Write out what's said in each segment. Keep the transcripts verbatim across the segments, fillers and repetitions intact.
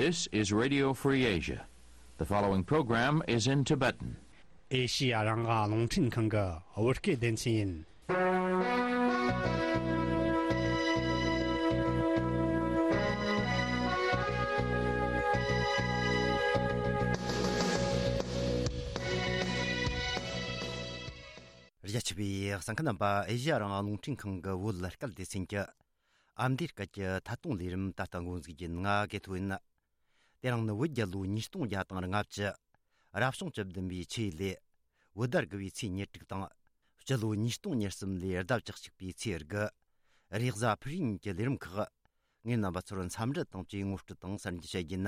This is Radio Free Asia. The following program is in Tibetan. ཨེ་ཤི་ཡ་རང་དབང་རླུང་འཕྲིན་ཁང་གི་བོད་སྐད་སྡེ་ཚན་ཡིན། རྒྱ་ཆེ་བའི་གསན་མཁན་རྣམ་པ། ཨེ་ཤི་ཡ་རང་དབང་རླུང་འཕྲིན་ཁང་གི་བོད་སྐད་སྡེ་ཚན་གྱི་ཨ་མདོའི་སྐད་ཀྱི་ཐད་གཏོང་ལས་རིམ་ད་ལྟ་འགོ་འཛུགས་རྒྱུ་ཡིན། ང་གི་ཐོ་ཡིན། དེ་རིང་ནི་བོད་རྒྱལ་ལོ་ཉིས་སྟོང་བརྒྱ་དང་ལྔ་བཅུ། རབ་བྱུང་བཅུ་བདུན་པའི་ཆུ་ཡོས་ལོའི་བོད་ཟླ་དགུ་བའི་ཚེས་ཉེར་དྲུག་དང་། སྤྱི་ལོ་ཉིས་སྟོང་ཉེར་གསུམ་ལོའི་ཟླ་བཅུ་གཅིག་པའི་ཚེས་དགུ། རེས་གཟའ་ཕུར་བུ་ཉིན་གྱི་ལས་རིམ་ཁག་ངས་རྣམ་པ་ཚོར་འཚམས་འདྲི་དང་བཅས་ངོ་སྤྲོད་དང་གསར་འགྱུར་བཤད་རྒྱུ་ཡིན།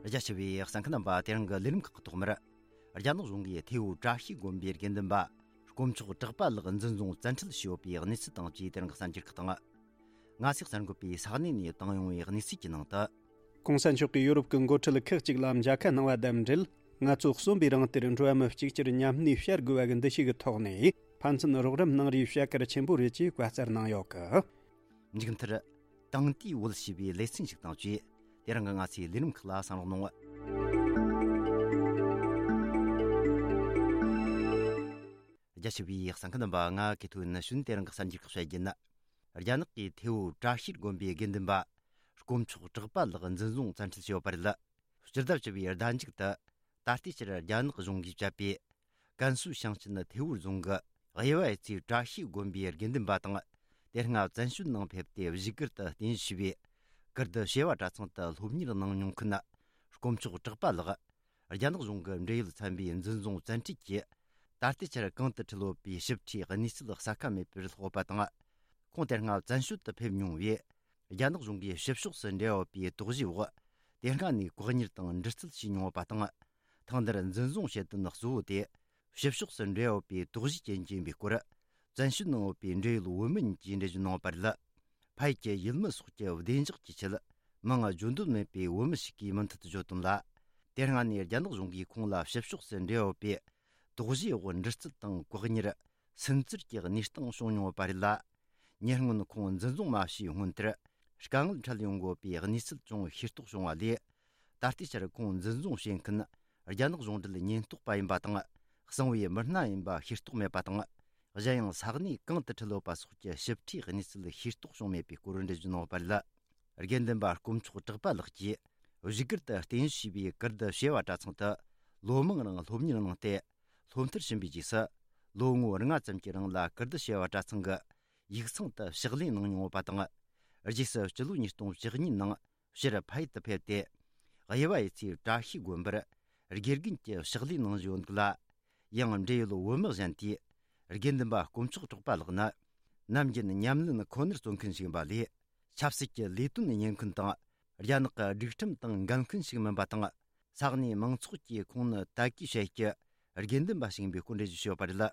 རྒྱ་ཆེ་བའི་གསན་མཁན་རྣམ་པ། དེ་རིང་གི་ལས་རིམ་ཁག་གི་ཐོག་མར། རྒྱ་ནག་གཞུང་གིས་ཐེ་བོ་བཀྲ་ཤིས་དགོན་པའི་དགེ་འདུན་པ་དཀོན་མཆོག་གྲགས་པ་ལགས་འཛིན་བཟུང་བཙན་ཁྲིད་བྱས་ཡོད་པའི་གནས་ཚུལ་དང་བཅས་དེ་རིང་གི་གསར་འགྱུར་ཁག་དང་། ང་ཚོས་གསར་འགོད་པས་ས་གནས་ནས་བཏང་ཡོང་བའི་གནས་ཚུལ་གྱི་ནང་དུ། གོང་ས་མཆོག་གིས་ཡོ་རོབ་ཀྱི་འགོ་ཁྲིད་ཁག་ཅིག་ལ་མཇལ་ཁ་གནང་བ་དང་འབྲེལ། ངལ་རྩོལ་གསོན་པོའི་རིང་དེར་འགྲོ་བ་མི་གཅིག་གྱུར་མཉམ་གནས་བྱ་དགོས་པ་གི་འདུ་ཤེས་ཀྱི་ཐོག་ནས་ཕན་ཚུན་རོགས་རམ་གནང་རེས་བྱ་གལ་ཆེན་པོ་རེད་ཅེས་བཀའ་སྩལ་གནང་ཡོད་གི། མཇུག་མཐར། དེང་དུས་བོད་ཞེས་པའི་ལེ་ཚན་ཞིག་དང་བཅས་དེ་རིང་གི་ང་ཚོའི་ལས་རིམ་ཁག་ལ་གསན་རོགས་གནང་། རྒྱ་ཆེ་བའི་གསན་མཁན་རྣམ་པ། ང་གི་ཐོ་ཡིན། ནི་ཞུན་དེ་རིང་གི་གསར་འགྱུར་ཁག་བཤད་རྒྱུ་ཡིན། རྒྱ་ནག་གི་ཐེ་བོ་བཀྲ་ཤིས་དགོན་པའི་དགེ་འདུན་པ་དཀོན་མཆོག་གྲགས་པ་ལགས་འཛིན་བཟུང་བཙན་ཁྲིད་བྱས་ཡོད་པ་རེད། སྤྱི་ཟླ་བཅུ་པའི་ཟླ་མཇུག་ཏུ། ད་ལྟའི་ཆར་རྒྱ་ནག་གཞུང་གིས་བཅད་པའི་ཀན་སུའུ་ཞིང་ཆེན་ཐེ་བོ་རྫོང་གི་དབྱེ་བ་ཡོད་ཚད་བཀྲ་ཤིས་དགོན་པའི་དགེ་འདུན་པ་དང་། དེ་སྔ་བཙན་བྱོལ་ནང་ཕེབས་ཏེ་བཞུགས་སྒར་དུ་རྟེན་གཞི་བྱས་པའི་ཀིརྟི་བྱེས་པ་གྲྭ་ཚང་དུ་སློབ་གཉེར་གནང་མྱོང་མཁན་དཀོན་མཆོག་གྲགས་པ་ལགས། རྒྱ་ནག་གཞུང་གི་འབྲེལ་ཡོད་ཚན་པས་འཛིན་བཟུང་བཙན་ཁྲིད་ཀྱིས། ད་ལྟའི་ཆར་གང་དུ་ཁྲིད་ཡོད་པའི་ཞིབ་ཕྲའི་གནས་ཚུལ་གསལ་ཁ་མེད་པར་ལྷག་ཡོད་པ་དང་། ཁོང་དེ་སྔ་བཙན་བྱོལ་དུ་ཕེབས་མྱོང་བས། རྒྱ་ནག་གཞུང་གིས་ཕྱི་ཕྱོགས་སུ་འབྲེལ་ཡོད་པའི་དོགས་གཞིའི་འོག་དེ་སྔ་ནས་བཀག་ཉར་དང་འདྲི་རྩད་བྱས་མྱོང་བ་དང་། ཐེངས་འདིར་འཛིན་བཟུང་བྱེད་དོན་གཙོ་བོ་དེ། ཕྱི་ཕྱོགས་སུ་འབྲེལ་ཡོད་པའི་དོགས་གཞིའི་རྐྱེན་གྱིས་ཡིན་པའི་སྐོར། བཙན་བྱོལ་ནང་ཡོད་པའི་འབྲེལ་ཡོད་བོད་མི་གཉིས་ཀྱིས་འགྲེལ་བརྗོད་གནང་བ་རེད། ཕ་ཡུལ་གྱི་ཡུལ་མི་སོགས་ཀྱི་བདེ་འཇགས་ཀྱི་ཆེད། མིང་བརྗོད་འདོད་མེད་པའི་བོད་མི་ཞིག་གིས་མུ་མཐུད་དུ་བརྗོད་དོན་ལ། དེ་སྔ་ནས་རྒྱ་ནག་གཞུང་གིས་ཁོང་ལ་ཕྱི་ཕྱོགས་སུ་འབྲེལ་ཡོད་པའི་དོགས་གཞིའི་འོག་འདྲི་རྩད་དང་བཀག་ཉར། སུན་གཙེར་གྱི་གནས་སྟངས་བྱུང་མྱོང་ཡོད་པ་རེད་ལ། ཉེ་སྔོན་ཁོང་འཛིན་བཟུང་མ་བྱས་སྔོན་དེར་དཀའ་ངལ་འཕྲད་ཡོང་དགོས་པའི་གནས་ཚུལ་ཅུང་ཤེས་རྟོགས་བྱུང་བ་ལས། ད་ལྟའི་ཆར་ཁོང་འཛིན་བཟུང་བྱེད་མཁན་རྒྱ་ནག་གཞུང་འབྲེལ་ཉེན་རྟོག་པ་ཡིན་པ་དང་། གསང་བའི་མི་སྣ་ཡིན་པ་ཤེས་རྟོགས་མེད་པ་དང་། གཞན་ཡང་ས་གནས་གང་དུ་ཁྲིད་ཡོད་པ་སོགས་ཀྱི་ཞིབ་ཕྲའི་གནས་ཚུལ་ཤེས་རྟོགས་བྱུང་མེད་པའི་སྐོར་འགྲེལ་བརྗོད་གནང་ཡོད་པ་རེད། དགེ་འདུན་པ་དཀོན་མཆོག་གྲགས་པ་ལགས་ཀྱིས་བཞུགས་སྒར་དུ་རྟེན་གཞི་བྱས་པའི་ཀིརྟི་བྱེས་པ་གྲྭ་ཚང་དུ་ལོ་མང་རིང་སློབ་གཉེར་གནང་སྟེ། སློབ་མཐར་ཕྱིན་པའི་རྗེས་སུ། ལོ་ངོ་ལྔ་ཙམ་གྱི་རིང་ལ་ཀིརྟི་བྱེས་པ་གྲྭ་ཚང་གི་ཡིག་ཚང་དུ་ཕྱག་ལས་གནང་མྱོང་ཡོད་པ་དང་། རྗེས་སུ་སྤྱི་ལོ་ཉིས་སྟོང་བཅུ་གཉིས་ནང་ཕྱིར་ཕ་ཡུལ་དུ་ཕེབས་ཏེ། དབྱེ་བ་ཡོད་ཚད་བཀྲ་ཤིས་དགོན་པར་དགེ་རྒན་གྱི་ཕྱག་ལས་གནང་བཞིན་ཡོད་འདུག་ལ། ཡང་འབྲེལ་ཡོད་བོད་མི་གཞན་དེས། དགེ་འདུན་པ་དཀོན་མཆོག་གྲགས་པ་ལགས་ནི། ནམ་རྒྱུན་ཉམས་ལེན་ཁོ་ནར་བརྩོན་མཁན་ཞིག་ཡིན་པ་ལས། ཆབ་སྲིད་ཀྱི་ལས་དོན་གཉེར་མཁན་དང་། རྒྱ་ནག་གི་སྒྲིག་ཁྲིམས་དང་འགལ་མཁན་ཞིག་མིན་པ་དང་། ས་གནས་མང་ཚོགས་ཀྱིས་ཁོང་ནི་དད་གུས་བྱེད་ཀྱི་དགེ་འདུན་པ་ཞིག་ཡིན་པའི་སྐོར་འགྲེལ་བརྗོད་བྱས་ཡོད་པ་རེད།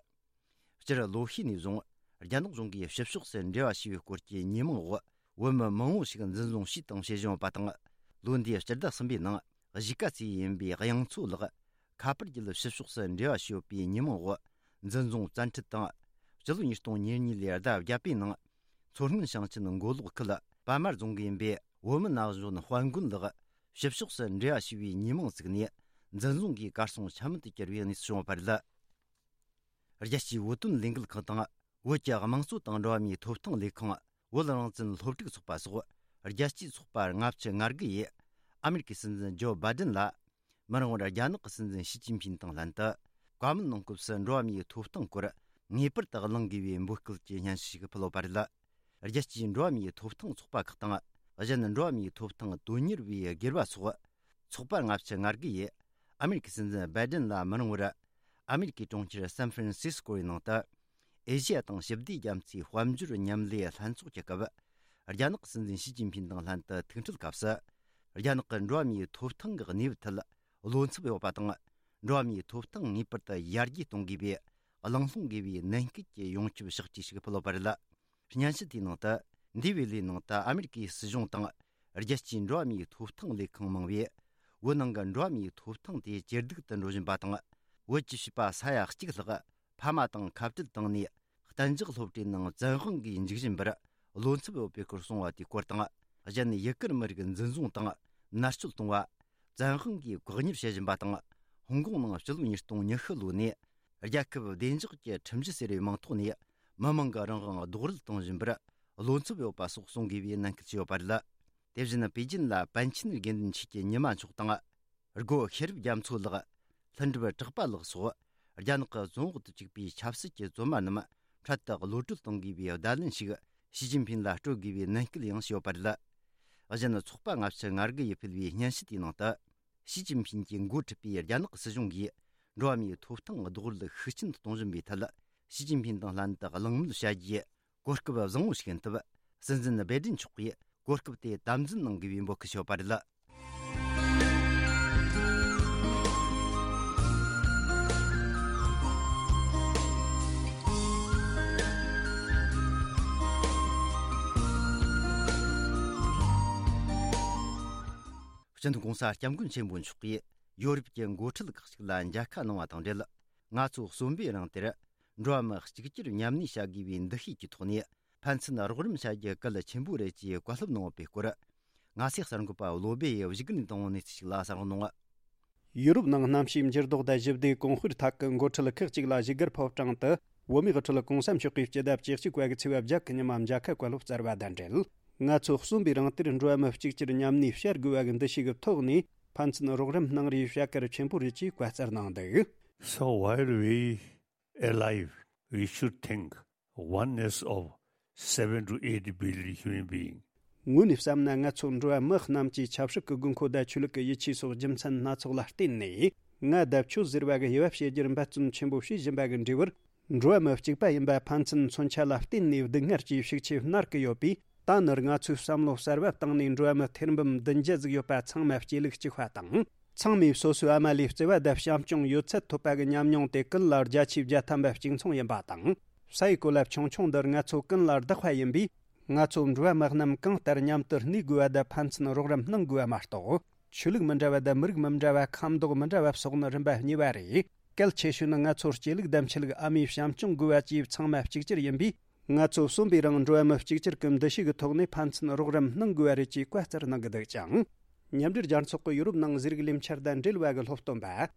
སྤྱིར་ལོ་ཤས་ནས་བཟུང་རྒྱ་ནག་གཞུང་གིས་ཕྱི་ཕྱོགས་སུ་འབྲེལ་བ་བྱས་པའི་སྐོར་གྱི་ཉེས་མིང་འོག་བོད་མི་མང་བོ་ཞིག་འཛིན་བཟུང་བྱས་དང་བྱེད་བཞིན་ཡོད་པ་དང་། ལོ་འདིའི་སྤྱི་ཟླ་གསུམ་པའི་ནང་གཞིས་ཀ་རྩེ་ཡིན་པའི་དབྱངས་མཚོ་ལགས་ཁ་པར་བརྒྱུད་ཕྱི་ཕྱོགས་སུ་འབྲེལ་བ་བྱས་ཡོད་པའི་ཉེས་མིང་འོག་འཛིན་བཟུང་བཙན་ཁྲིད་དང་། སྤྱི་ལོ་ཉིས་སྟོང་ཉེར་གཉིས་ལོའི་ཟླ་བརྒྱད་པའི་ནང་མཚོ་སྔོན་ཞིང་ཆེན་མགོ་ལོག་ཁུལ་པད་མ་རྫོང་གི་ཡིན་པའི་བོད་མི་ན་གཞོན་དཔལ་མགོན་ལགས་ཕྱི་ཕྱོགས་སུ་འབྲེལ་བ་བྱས་པའི་ཉེས་མིང་བཙུགས་ནས་འཛིན་བཟུང་གིས་གར་སོང་ཆ་མེད་དུ་གྱུར་བའི་གནས་ཚུལ་བྱུང་བ་རེད། རྒྱལ་སྤྱིའི་བོད་དོན་ལས་འགུལ་ཁང་དང་བོད་ཀྱི་དམངས་གཙོ་དང་འགྲོ་བ་མིའི་ཐོབ་ཐང་ལས་ཁང་། བོད་རང་བཙན་སློབ་ཕྲུག་ཚོགས་པ་སོགས་རྒྱལ་སྤྱིའི་ཚོགས་པ་ལྔ་བཅུ་ང་དགུ་ཡིས་ཨ་མེ་རི་ཀའི་སྲིད་འཛིན་ཇོ་བྷའི་ཌེན་ལ། མི་རིང་བར་རྒྱ་ནག་གི་སྲིད་འཛིན་ཞི་ཅིན་ཕིན་དང་ལྷན་དུ་བཀའ་མོལ་གནང་སྐབས་སུ་འགྲོ་བ་མིའི་ཐོབ་ཐང་སྐོར་ངེས་པར་དུ་གླེང་དགོས་པའི་འབོད་སྐུལ་གྱི་སྙན་ཞུ་ཞིག་ཕུལ་ཡོད་པ་རེད། རྒྱལ་སྤྱིའི་འགྲོ་བ་མིའི་ཐོབ་ཐང་ཚོགས་པ་ཁག་དང་གཞན་འགྲོ་བ་མིའི་ཐོབ་ཐང་དོན་གཉེར་བའི་སྒེར་བ་སོགས་ཚོགས་པ་ལྔ་བཅུ་ང་དགུ་ཡིས་ཨ་མེ་རི་ཀའི་སྲིད་འཛིན་བྷའི་ཌེན་ལ་མི་རིང་བར་ཨ་མེ་རི་ཀའི་གྲོང་ཁྱེར་སན་ཧྥ་རན་སིས་ཀོ་ཡི་ནང་དུ། ཨེ་ཤི་ཡ་དང་ཞི་བདེ་རྒྱ་མཚོའི་དཔལ་འབྱོར་མཉམ་ལས་ལྷན་ཚོགས་ཀྱི་སྐབས། རྒྱ་ནག་གི་སྲིད་འཛིན་ཞི་ཅིན་ཕིན་དང་ལྷན་དུ་ཐུག་འཕྲད་སྐབས་སུ། རྒྱ་ནག་གི་འགྲོ་བ་མིའི་ཐོབ་ཐང་གི་གནས་བབ་ཐད་བློ་འཚབ་ཡོད་པ་དང་། འགྲོ་བ་མིའི་ཐོབ་ཐང་ངེས་པར་དུ་ཡར་རྒྱས་གཏོང་དགོས་པའི་གླེང་སློང་དགོས་པའི་ནན་སྐུལ་གྱི་ཡོངས་ཁྱབ་ཕྱག་བྲིས་ཤིག་ཕུལ་ཡོད་པ་རེད། སྙན་ཞུ་དེའི་ནང་དུ། འདས་པའི་ལོའི་ནང་དུ་ཨ་མེ་རི་ཀའི་སྲིད་གཞུང་དང་། རྒྱལ་སྤྱིའི་འགྲོ་བ་མིའི་ཐོབ་ཐང་ལས་ཁང་མང་བས། བོད་ནང་གི་འགྲོ་བ་མིའི་ཐོབ་ཐང་དེ་ཇེ་སྡུག་ཏུ་འགྲོ་བཞིན་པ་དང་། བོད་ཀྱི་བྱིས་པ་ས་ཡ་གཅིག་ལྷག་ཕ་མ་དང་ཁ་བྲལ་བཏང་ནས། གཏན་འཇགས་སློབ་གྲྭའི་ནང་བཙན་དབང་གིས་འཇུག་བཞིན་པར་ བློ་འཚབ་ཡོད་པའི་སྐོར་གསུངས་པ་དེའི་སྐོར་དང་། གཞན་ཡུ་གུར་མི་རིགས་འཛིན་བཟུང་དང་མནར་གཅོད་གཏོང་བ། བཙན་དབང་གིས་བཀག་ཉར་བྱེད་བཞིན་པ་དང་། ཧོང་ཀོང་ནང་སྤྱི་ལོ་ཉིས་སྟོང་ཉི་ཤུ་ལོ་ནས་རྒྱལ་ཁབ་བདེ་འཇགས་ཀྱི་ཁྲིམས་གཞི་ཟེར་བའི་མིང་ཐོག་ནས་མི་མང་གིས་རང་དབང་རྡོག་རོལ་གཏོང་བཞིན་པར་བློ་འཚབ་ཡོད་པ་སོགས་གསུང་དགོས་པའི་ནན་སྐུལ་བྱས་ཡོད་པ་རེད། དེ་བཞིན་པེ་ཅིན་ལ་པཎ་ཆེན་དགེ་འདུན་ཆོས་ཀྱི་ཉི་མ་མཆོག་དང་། སྒོ་ཤེས་རབ་རྒྱ་མཚོ་ལགས། ལྷུན་གྲུབ་གྲགས་པ་ལགས་སོགས་རྒྱ་ནག་གི་བཙོན་འོག་ཏུ་བཅུག་པའི་ཆབ་སྲིད་ཀྱི་བཙོན་པ་རྣམས་འཕྲལ་དུ་གློད་གྲོལ་གཏོང་དགོས་པའི་བརྡ་ལན་ཞིག་ཞི་ཅིན་ཕིན་ལ་སྤྲོད་དགོས་པའི་ནན་སྐུལ་ཡང་བྱས་ཡོད་པ་རེད། གཞན། ཚོགས་པ་ལྔ་བཅུ་ང་དགུ་ཡིས་ཕུལ་བའི་སྙན་ཞུ་དེའི་ནང་དུ། ཞི་ཅིན་ཕིན་གྱིས་འགོ་ཁྲིད་པའི་རྒྱ་ནག་སྲིད་གཞུང་གིས་འགྲོ་བ་མིའི་ཐོབ་ཐང་རྡོག་རོལ་ཤུགས་ཆེན་གཏོང་བཞིན་པའི་ཐད། ཞི་ཅིན་ཕིན་དང་ལྷན་དུ་གླེང་མོལ་བྱ་རྒྱུའི་གོ་སྐབས་བཟང་བོ་ཞིག་ཡིན་སྟབས། སྲིད་འཛིན་སྦེ་ཏྲིན་མཆོག་གིས་གོ་སྐབས་དེ་དམ་འཛིན་གནང་དགོས་པའི་འབོད་སྐུལ་ཞུས་པ་རེད། སྤྱི་མཐུན་གོང་ས་སྐྱབས་མགོན་ཆེན་པོ་མཆོག་གིས་ཡོ་རོབ་ཀྱི་འགོ་ཁྲིད་ཁག་ཅིག་ལ་མཇལ་ཁ་གནང་བ་དང་འབྲེལ། ང་ཚོ་གསོན་པོའི་རིང་དེར་འགྲོ་བ་མི་གཅིག་གྱུར་མཉམ་གནས་བྱ་དགོས་པའི་འདུ་ཤེས་ཀྱི་ཐོག་ནས་ཕན་ཚུན་རོགས་རམ་བྱ་རྒྱུ་གལ་ཆེན་པོ་རེད་ཅེས་བཀའ་སློབ་གནང་བའི་སྐོར། ང་ཚོའི་གསར་འགོད་པ་བློ་སྦེ་ཡིས་བཞུགས་སྒར་ནས་བཏང་བའི་གནས་ཚུལ་ཞིག་ལ་གསན་རོགས་གནང་། ཡུ་རོབ་ནང་གནམ་གཤིས་འགྱུར་ལྡོག་དང་ཞི་བདེའི་གོང་སྤེལ་ཐད་ཀྱི་འགོ་ཁྲིད་ཁག་ཅིག་ལ་བཞུགས་སྒར་ཕོ་བྲང་དུ་བོད་མིའི་དབུ་ཁྲིད་གོང་ས་མཆོག་གིས་སྤྱི་ཟླ་བཅུ་གཅིག་པ་གི་ཚེས་པ་བརྒྱད་ཀྱི་ཉི་མ་མཇལ་ཁ་བཀའ་སློབ་སྩལ་བ་དང་འབྲེལ། ང་ཚོ་གསོན་པའི་རིང་དེར་འགྲོ་བ་མི་གཅིག་གྱུར་མཉམ་གནས་བྱ་དགོས་པ་གི་འདུ་ཤེས་ཀྱི་ཐོག་ནས་ཕན་ཚུན་རོགས་རམ་གནང་རེས་བྱ་གལ་ཆེན་པོ་རེད་ཅེས་བཀའ་སྩལ་གནང་འདུག། So while we alive, we should think oneness of seven to eight billion human beings. དངོས་ནས་བསམ་ན། ང་ཚོ་འགྲོ་བ་མི་རྣམས་ཀྱི་ཆབ་སྲིད་ཀྱི་དགོས་མཁོ་དང་ཆོས་ལུགས་ཀྱི་ཡིད་ཆེས་སོགས་རྒྱུ་མཚན་སྣ་ཚོགས་ལ་བརྟེན་ནས། ང་དང་ཁྱོད་ཟེར་བ་གི་དབྱེ་བ་ཕྱེ་རྒྱུར་འབད་བརྩོན་ཆེན་པོ་བྱེད་བཞིན་པ་གི་འབྲས་བུར། འགྲོ་བ་མི་གཅིག་པ་ཡིན་པ་ཕན་ཚུན་མཚོན་ཆ་ལ་བརྟེན་ནས་སྡུག་བསྔལ་གྱི་ཤུགས་ཆེ་མནར་གི་ཡོད་པས། ད་ནི་ང་ཚོས་བསམ་བློ་གསར་བ་བཏང་ནས། འགྲོ་བ་མི་ཐེར་འབུམ་བདུན་བརྒྱ་ཟིག་ཡོད་པ་ཚང་མ་གཅིག་ལུགས་གཅིག་པ་དང་། ཚང་མས་སོ་སོའི་ཨ་མ་ལས་བརྩེ་བ་དང་བྱམས་སྐྱོང་ཡོད་ཚད་ཐོབ་པ་གི་ཉམས་མྱོང་དེ་ཀུན་ལ་བརྒྱ་ཆའི་བརྒྱ་ཐམ་པ་གཅིག་མཚུངས་ཡིན་པ་དང་། ས་ཡི་གོ་ལ་ཆུང་ཆུང་འདིར་ང་ཚོ་ཀུན་ལ་བདག་པ་ཡིན་པས། ང་ཚོ་འགྲོ་བ་མི་རྣམས་གང་ལྟར་མཉམ་དུ་གནས་དགོས་པ་དང་ཕན་ཚུན་རོགས་རམ་གནང་དགོས་པ་མ་གཏོགས། ཆོས་ལུགས་མི་འདྲ་བ་དང་མི་རིགས་མི་འདྲ་བ། ཁམས་མདོག་མི་འདྲ་བ་སོགས་ནི་རིམ་པ་གཉིས་པ་རེད། གལ་ཆེ་ཤོས་ནི་ང་ཚོ་སྐྱེ་ལུགས་དང་ཆོས་ལུགས། ཨ་མའི་བྱམས་སྐྱོང་དགོས་པ་བཅས་ཚང་མ་གཅིག་གྱུར་ཡིན་པས། ང་ཚོ་གསོན་པའི་རིང་འགྲོ་བ་མི་གཅིག་གྱུར་གྱི་འདུ་ཤེས་ཀྱི་ཐོག་ནས་ཕན་ཚུན་རོགས་རམ་གནང་དགོས་པ་རེད་ཅེས་བཀའ་སྩལ་གནང་གི་འདུག་ཅིང་། མཉམ་འབྲེལ་རྒྱལ་ཚོགས་ཀྱི་ཡུ་རོབ་ནང་ཟས་རིགས་ལས་འཆར་དང་འབྲེལ་བ་གི་སློབ་སྟོན་པ།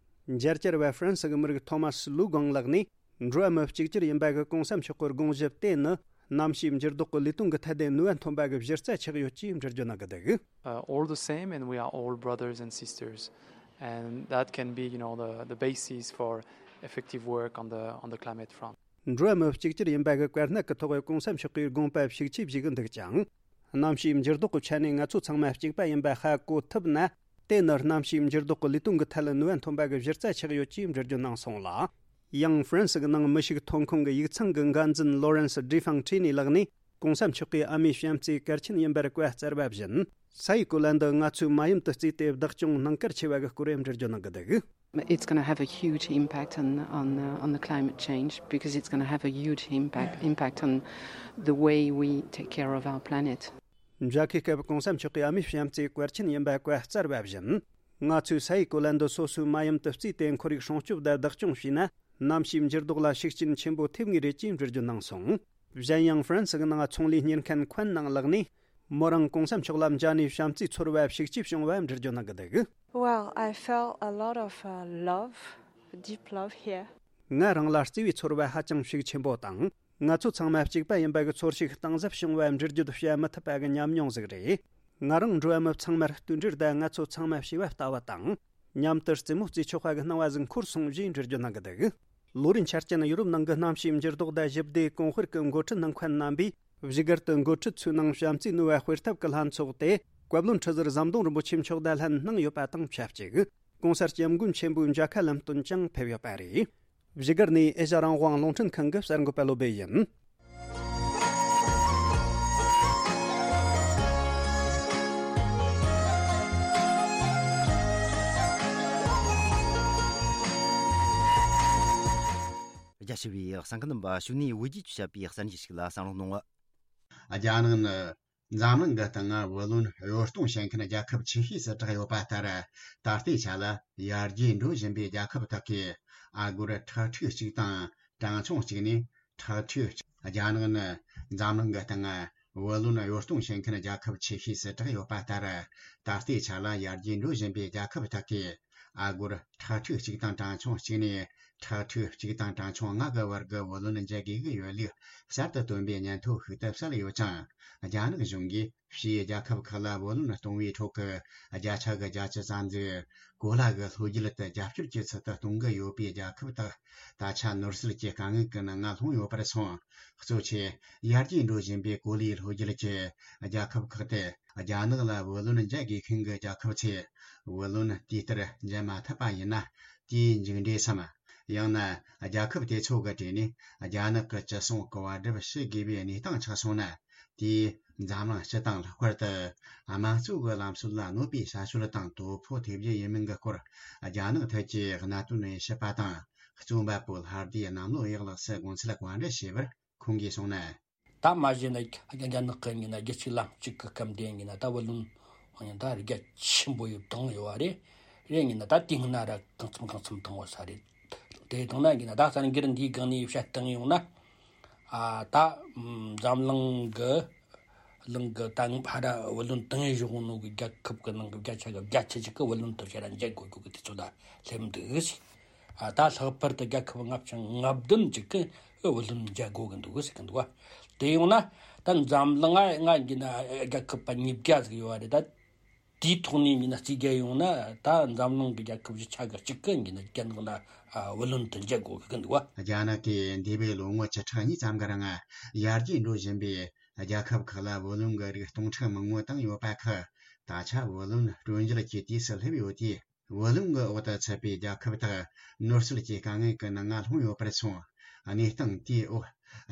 མཇལ་བཅར་བ་ཧྥ་རན་སི་གི་མི་རིགས་ཐོ་མཱ་སི་ལུའུ་གོང་ལགས་ནས། འགྲོ་བ་མི་གཅིག་གྱུར་ཡིན་པ་གི་གོང་ས་མཆོག་གི་དགོངས་གཞི་དེ་ནི། གནམ་གཤིས་འགྱུར་ལྡོག་གི་ལས་དོན་གྱི་ཐད་དུ་ནུས་པ་ཐོན་པ་གི་གཞི་རྩ་ཆགས་ཡོད་ཅེས་འགྲེལ་བརྗོད་གནང་གི་འདུག། Uh, all the same, and we are all brothers and sisters, and that can be, you know, the, the basis for effective work on the, on the climate front. འགྲོ་བ་མི་གཅིག་གྱུར་ཡིན་པ་གི་དཀའ་གནད་ཀྱི་ཐོག་གོང་ས་མཆོག་གིས་དགོངས་པ་ཤུགས་ཆེ་བཞེས་ཀྱི་འདུག་ཅིང་། གནམ་གཤིས་འགྱུར་ལྡོག་གི་ཆ་ནས་ང་ཚོ་ཚང་མ་གཅིག་པ་ཡིན་པ་ཧ་གོ་ཐུབ་ན། དེ་ནི་གནམ་གཤིས་འགྱུར་ལྡོག་གི་ལས་དོན་གྱི་ཐད་ལ་ནུས་པ་ཐོན་པ་གི་གཞི་རྩ་ཆགས་ཡོད་ཅེས་འགྲེལ་བརྗོད་གནང་སོང་ལ། ཡང་ཧྥ་རན་སི་གི་ནང་མི་ཤུགས་ཐོན་ཁུངས་ཀྱི་ཡིག་ཚང་གི་འགན་འཛིན་ལོ་རན་སི་ཌི་ཧྥང་ཁྲི་ནི་ལགས་ནས། གོང་ས་མཆོག་གིས་ཨ་མའི་བྱམས་བརྩེ་གལ་ཆེན་ཡིན་པར་བཀའ་སྩལ་བ་བཞིན། ས་ཡི་གོ་ལ་འདི་ང་ཚོས་མ་ཡུམ་དུ་བརྩིས་ཏེ་བདག་སྐྱོང་གནང་གལ་ཆེ་བ་གི་སྐོར་འགྲེལ་བརྗོད་གནང་གི་འདུག། It's going to have a huge impact on, on, uh, on the climate change because it's going to have a huge impact, impact on the way we take care of our planet. མཇལ་ཁའི་སྐབས་གོང་ས་མཆོག་གིས་ཨ་མའི་བྱམས་བརྩེ་གལ་ཆེན་ཡིན་པ་བཀའ་སྩལ་བ་བཞིན། ང་ཚོས་ས་ཡི་གོ་ལ་འདི་སོ་སོའི་མ་ཡུམ་དུ་བརྩིས་ཏེ་ཁོར་ཡུག་སྲུང་སྐྱོབ་དང་བདག་སྐྱོང་བྱས་ན། གནམ་གཤིས་འགྱུར་ལྡོག་ལ་ཤུགས་རྐྱེན་ཆེན་པོ་ཐེབས་ངེས་རེད་ཅེས་འགྲེལ་བརྗོད་གནང་སོང་། གཞན་ཡང་ཧྥ་རན་སི་གི་ནང་ཚོང་ལས་གཉེར་མཁན་ཁོན་ནང་ལགས་ནས། མོ་རང་གོང་ས་མཆོག་ལ་མཇལ་ནས་བྱམས་བརྩེ་ཚོར་བ་ཤུགས་ཆེ་བྱུང་བ་འགྲེལ་བརྗོད་གནང་གི་འདུག། Well, I felt a lot of, uh, love, deep love here. ང་རང་ལ་བརྩེ་བའི་ཚོར་བ་ཧ་ཅང་ཤུགས་ཆེན་པོ་དང་། ང་ཚོ་ཚང་མ་གཅིག་པ་ཡིན་པ་གི་ཚོར་ཤུགས་གཏིང་ཟབ་བྱུང་བ་འགྲེལ་བརྗོད་བྱ་མི་ཐུབ་པ་གི་ཉམས་མྱོང་ཟིག་རེད། ང་རང་འགྲོ་བ་མི་ཚང་མར་བསྟུན་གྲོས་དང་ང་ཚོ་ཚང་མ་བྱེས་པ་ལྟ་བུ་དང་། མཉམ་དུ་རྩེད་མོ་རྩེ་ཆོག་པ་གི་སྣང་བ་ཟིག་འཁོར་སོང་ཞེས་འགྲེལ་བརྗོད་གནང་གི་འདུག། ལོ་རེའི་འཆར་ཅན་ཡུ་རོབ་ནང་གི་གནམ་གཤིས་འགྱུར་ལྡོག་དང་ཞི་བདེའི་གོང་སྤེལ་གྱི་འགོ་ཁྲིད་ནང་མཁན་རྣམ་པས་བཞུགས་སྒར་དུ་འགོ་ཁྲིད་ཚོའི་ནང་བྱམས་བརྩེའི་ནུས་པ་སྤེལ་ཐབས་ཀྱི་ལྷན་ཚོགས་དེ་བཀའ་བློན་ཁྲི་ཟུར་ཟམ་གདོང་རིན་པོ་ཆེ་མཆོག་དང་ལྷན་གནང་ཡོད་པ་དང་ཆབས་ཅིག། གོང་ས་སྐྱབས་མགོན་ཆེན་པོའི་མཇལ་ཁ་ལམ་སྟོན་ཀྱང་ཕེབས་ཡོད་པ་རེད། བཞུགས་སྒར་ནས་ཨེ་ཤ་རང་དབང་རླུང་འཕྲིན་ཁང་གི་གསར་འགོད་པ་བློ་སྦེ་ཡིན། རྒྱ་ཆེ་བའི་གསན་མཁན་རྣམ་པ། གཞུག་ནས་བོད་རྒྱའི་ཆོས་བྱ་བའི་གསར་འགྱུར་ཞིག་ལ་གསན་རོགས་གནང་། རྒྱ་ནག་ནི་འཛམ་གླིང་གི་སྟེང་བུ་ལོན་གཡོ་གཏོང་བྱེད་མཁན་རྒྱལ་ཁབ་ཆེ་ཤོས་སུ་གྲགས་ཡོད་པ་ལྟར། ད་ལྟའི་ཆ་ལ་ཡར་རྒྱས་འགྲོ་བཞིན་པའི་རྒྱལ་ཁབ་དག་གི་ཨ་སྒོར་ཁྲག་ཁྲིག་གཅིག་དང་གྲངས་ཆུང་གཅིག་ནས་ཁྲག་ཁྲིག་གཅིག། རྒྱ་ནག་ནི་འཛམ་གླིང་གི་སྟེང་ བུ་ལོན་གཡོ་གཏོང་བྱེད་མཁན་རྒྱལ་ཁབ་ཆེ་ཤོས་སུ་གྲགས་ཡོད་པ་ལྟར། ད་ལྟའི་ཆ་ལ་ཡར་རྒྱས་འགྲོ་བཞིན་པའི་རྒྱལ་ཁབ་དག་གིས་ཨ་སྒོར་ཁྲག་ཁྲིག་གཅིག་དང་གྲངས་ཆུང་གཅིག་ནས་ཁྲག་ཁྲིག་གཅིག་དང་གྲངས་ཆུང་ལྔ་གི་བར་གྱི་བུ་ལོན་འཇལ་དགོས་ཀྱི་ཡོད་ལུགས་གསར་དུ་བཏོན་པའི་སྙན་ཐོ་ཞིག་ཏུ་གསལ་ཡོད་ཅིང་། རྒྱ་ནག་གཞུང་གིས་ཕྱིའི་རྒྱལ་ཁབ་ཁག་ལ་བུ་ལོན་གཏོང་བའི་ཁྲོད་ཀྱི་བརྒྱ་ཆ་གི་བརྒྱད་ཅུ་ཙམ་ཟིག་གོ་ལ་གི་ལྷོ་རྒྱུད་དུ་རྒྱབ་སྐྱོར་གྱི་ཚུལ་དུ་གཏོང་གི་ཡོད་པའི་རྒྱལ་ཁབ་དག་ད་ཆ་ནོར་སྲིད་ཀྱི་དཀའ་ངལ་གྱི་ནང་ང་ལྷུང་ཡོད་པར་སོང་། གཙོ་ཆེ་ཡར་རྒྱས་འགྲོ་བཞིན་པའི་གོ་ལའི་ལྷོ་རྒྱུད་ཀྱི་རྒྱལ་ཁབ་ཁག་སྟེ། རྒྱ་ནག་ལ་བུ་ལོན་འཇལ་དགོས་མཁན་གྱི་རྒྱལ་ཁབ་ཚོས་བུ་ལོན་དུས་ལྟར་འཇལ་མ་ཐུབ་པ་ཡིན་ན། དེའི་མཇུག་འབྲས་སམ། ཡང་ན་རྒྱལ་ཁབ་དེ་ཚོ་གི་གྲས་ནས་རྒྱ་ནག་གི་ཅི་གསུང་གི་བར་སྒྲུབ་བྱེད་དགོས་པའི་གནས་སྟངས་ཆགས་སོང་ན། དེས་འཛམ་གླིང་སྤྱི་དང་ལྷག་པར་དུ་དམངས་གཙོ་གི་ལམ་སྲོལ་ལ་གནོད་པའི་བྱ་སྤྱོད་དང་དོ་ཕོག་ཐེབས་རྒྱུ་ཡིན་མིན་གྱི་སྐོར། རྒྱ་ནག་ཐད་ཀྱི་གནད་དོན་དབྱེ་ཞིབ་པ་དང་། རྩོམ་པ་པོ་ལྷ་སྡེ་གནམ་ལོ་གཡག་ལགས་སུ་དགོངས་ཚུལ་བཀའ་འདྲི་ཞུས་པར། ཁོང་གིས་གསུངས་ན། ད་མ་གཞི་ནས་རྒྱ་ནག་གི་ཡིན་ན་རྒྱལ་སྤྱིའི་ལམ་ལུགས་ཀྱི་སྐབས་འདི་ཡིན་ན་ད་བུ་ལོན་ཡིན་ན་ད་རྒྱ་ཆེན་པོ་ཡོད་བཏང་ཡོད་པ་རེད། རེད་ཡིན་ན་ད་དེ་སྔོན་ན་ར་གང་འཚམ་གང་འཚམ་བཏང་བ་ས་རེད། དེ་བཏང་ན་ཡིན་ན་ད་གསར་འགྱུར་འདིའི་སྒང་ནས་བཤད་བཏང་ཡོང་ན། ཨ་ད་འཛམ་གླིང་གི་གླིང་གི་ད་ཕ་ར་བུ་ལོན་བཏང་བཞག་ནོ་གི་རྒྱལ་ཁབ་གི་ནང་གི་བརྒྱ་ཆ་གི་བརྒྱད་ཅུ་ཅིག་གི་བུ་ལོན་དུ་བྱས་ན་འཇལ་དགོས་དགོས་གི་དུས་ཚོད་ལ་སླེབས་འདུག་ཟེར། ཨ་ད་ལྷག་པར་དུ་རྒྱལ་ཁབ་ལྔ་བཅུ་ང་བདུན་ཅིག་གི་བུ་ལོན་འཇལ་དགོས་གི་འདུག་ཟེར་གི་འདུག་བ། དེ་ཡོང་ན་ད་འཛམ་གླིང་ང་ང་གི་ན་རྒྱལ་ཁབ་པ་ཉིས་བརྒྱ་ཟིག་ཡོད་བ་རེད། ད་དེའི་ཐོག་ནས་ཡིན་ན་རྩིས་རྒྱག་ཡོང་ན་ད་འཛམ་གླིང་གི་རྒྱལ་ཁབ་བཞི་ཆ་གི་གཅིག་གི་ཡིན་ན་རྒྱ་ནག་ལ་བུ་ལོན་དུ་འཇལ་དགོས་གི་འདུག་བ། རྒྱ་ནག་གིས་འདས་པའི་ལོ་ངོ་བཅུ་ཕྲག་གཉིས་ཙམ་གི་རིང་ཡར་རྒྱས་འགྲོ་བཞིན་པའི་རྒྱལ་ཁབ་ཁག་ལ་བུ་ལོན་གྱི་རིགས་སྟོང་ཕྲག་མང་པོ་བཏང་ཡོད་པ་ཁག་ད་ཆ་བུ་ལོན་སྤྲོད་འཇལ་གྱི་དུས་སུ་སླེབས་ཡོད་དུས། བུ་ལོན་གྱི་འོག་ཏུ་ཚུད་པའི་རྒྱལ་ཁབ་དག་ནོར་སྲིད་ཀྱི་དཀའ་ངལ་གྱི་ནང་ང་ལྷུང་ཡོད་པར་སོང་། གནས་སྟངས་དེའི་འོག་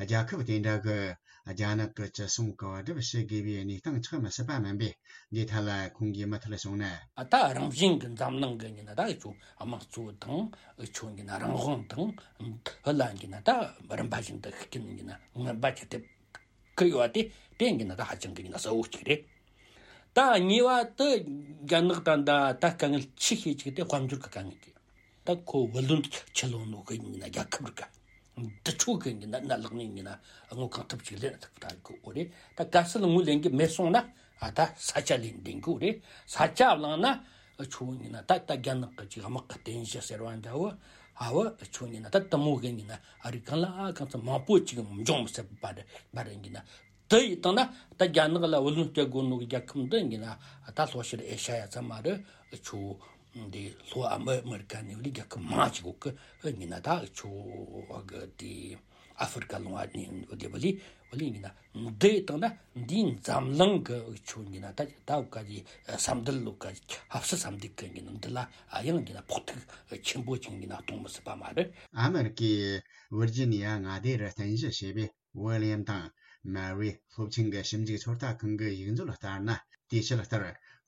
རྒྱལ་ཁབ་དེ་འདྲ་གི་རྒྱ་ནག་གི་ཅི་གསུང་གི་བར་སྒྲུབ་བྱེད་དགོས་པའི་གནས་སྟངས་ཆགས་མི་སྲིད་པ་མིན་པས། འདི་ཐད་ལ་ཁོང་གིས་མུ་མཐུད་གསུངས་ན། ད་རང་བཞིན་གྱི་འཛམ་གླིང་གི་ཡིན་ན་ད་འུ་ཆོ་དམངས་གཙོ་དང་འུ་ཆོ་ཡིན་ན་རང་དབང་དང་འདི་ལ་ཡིན་ན་ད་རིམ་པ་བཞིན་དུ་ཤུགས་རྐྱེན་ཡིན་ན་ངན་པ་ཅིག་ཐེབས་གི་ཡོད་པ་དེ་དེ་ཡིན་ན་ད་ཧ་ཅང་གི་ཡིན་ན་གསལ་བོ་གཅིག་རེད། ད་གཉིས་པ་དེ་རྒྱ་ནག་ད་ད་ད་དཀའ་ངལ་ཆེ་ཤོས་གཅིག་དེ་དཔལ་འབྱོར་གི་དཀའ་ངལ་གྱིས། ད་ཁོ་བུ་ལོན་ཆུ་ལོན་ནོ་གི་ཡིན་ན་རྒྱལ་ཁབ་རིག་ག་འདི་ཆོ་གི་ཡིན་ན་གནད་ལག་ནས་ཡིན་ན་དངུལ་གང་ཐུབ་ཅིག་ལེན་ཐུབ་ད་གི་འོ་རེད། ད་གལ་སྲིད་དངུལ་ལེན་གི་མེད་སོང་ན་ཨ་ད་ས་ཆ་ལེན་བསྡད་གི་འོ་རེད། ས་ཆ་བླངས་ན་ཆོ་ཡིན་ན་ད་ད་རྒྱ་ནག་གི་ཅིག་དམག་གི་རྟེན་གཞི་ཟེར་བ་འདྲ་བོ་ཨ་བོ་ཆོ་ཡིན་ན་ད་དེ་མོ་གི་ཡིན་ན་ཨ་རི་གང་ལ་ཨ་གང་ཚ་མང་པོ་ཅིག་འབྱུང་མི་སྲིད་པ་རེད་པ་རེད་ཡིན་ན། དེ་ཡིན་བཏང་ན་ད་རྒྱ་ནག་ལ་བུ་ལོན་སྤྲད་དགོས་ནོ་གི་རྒྱལ་ཁབ་འདི་ཡིན་ན་ད་ལྷོ་ཤར་ཨེ་ཤ་ཡ་ཚང་མ་རེད། ཆོ་འདི་ལྷོ་ཨ་མི་ཨ་མི་རི་ཀ་ནས་བ་ལི་རྒྱལ་ཁབ་མང་ཅིག་གོ་གི་ཡིན་ན་ད་ཆོ་གི་དེ་ཨ་ཧྥེ་རི་ཀ་ལུང་བ་ནས་བ་ལི་བ་ལི་བ་ལི་ཡིན་ན་འདི་བཏང་ན་འདིའི་འཛམ་གླིང་གི་ཆོ་ཡིན་ན་ད་ད་ག་གི་ས་འདུལ་ལུག་ག་ཧབ་སི་ས་འདུལ་གི་ཡིན་ན་འདི་ལ་ཨ་ཡང་ཡིན་ན་ཕོག་ཐུག་ཆེན་པོ་ཅིག་ཡིན་ན་གཏོང་མི་སྲིད་པ་མ་རེད། ཨ་མི་རི་ཀའི་ཝིར་ཇི་ནི་ཡ་མངའ་སྡེ་རུ་རྟེན་གཞི་བྱས་པའི་ཝི་ལི་ཡམ་དང་མ་རི་སློབ་ཆེན་གྱི་ཞིབ་འཇུག་ཚོད་ལྟ་ཁང་གི་ཡིག་མཛོད་ལ་ལྟར་ན། དེའི་ཆེད་ལྟར་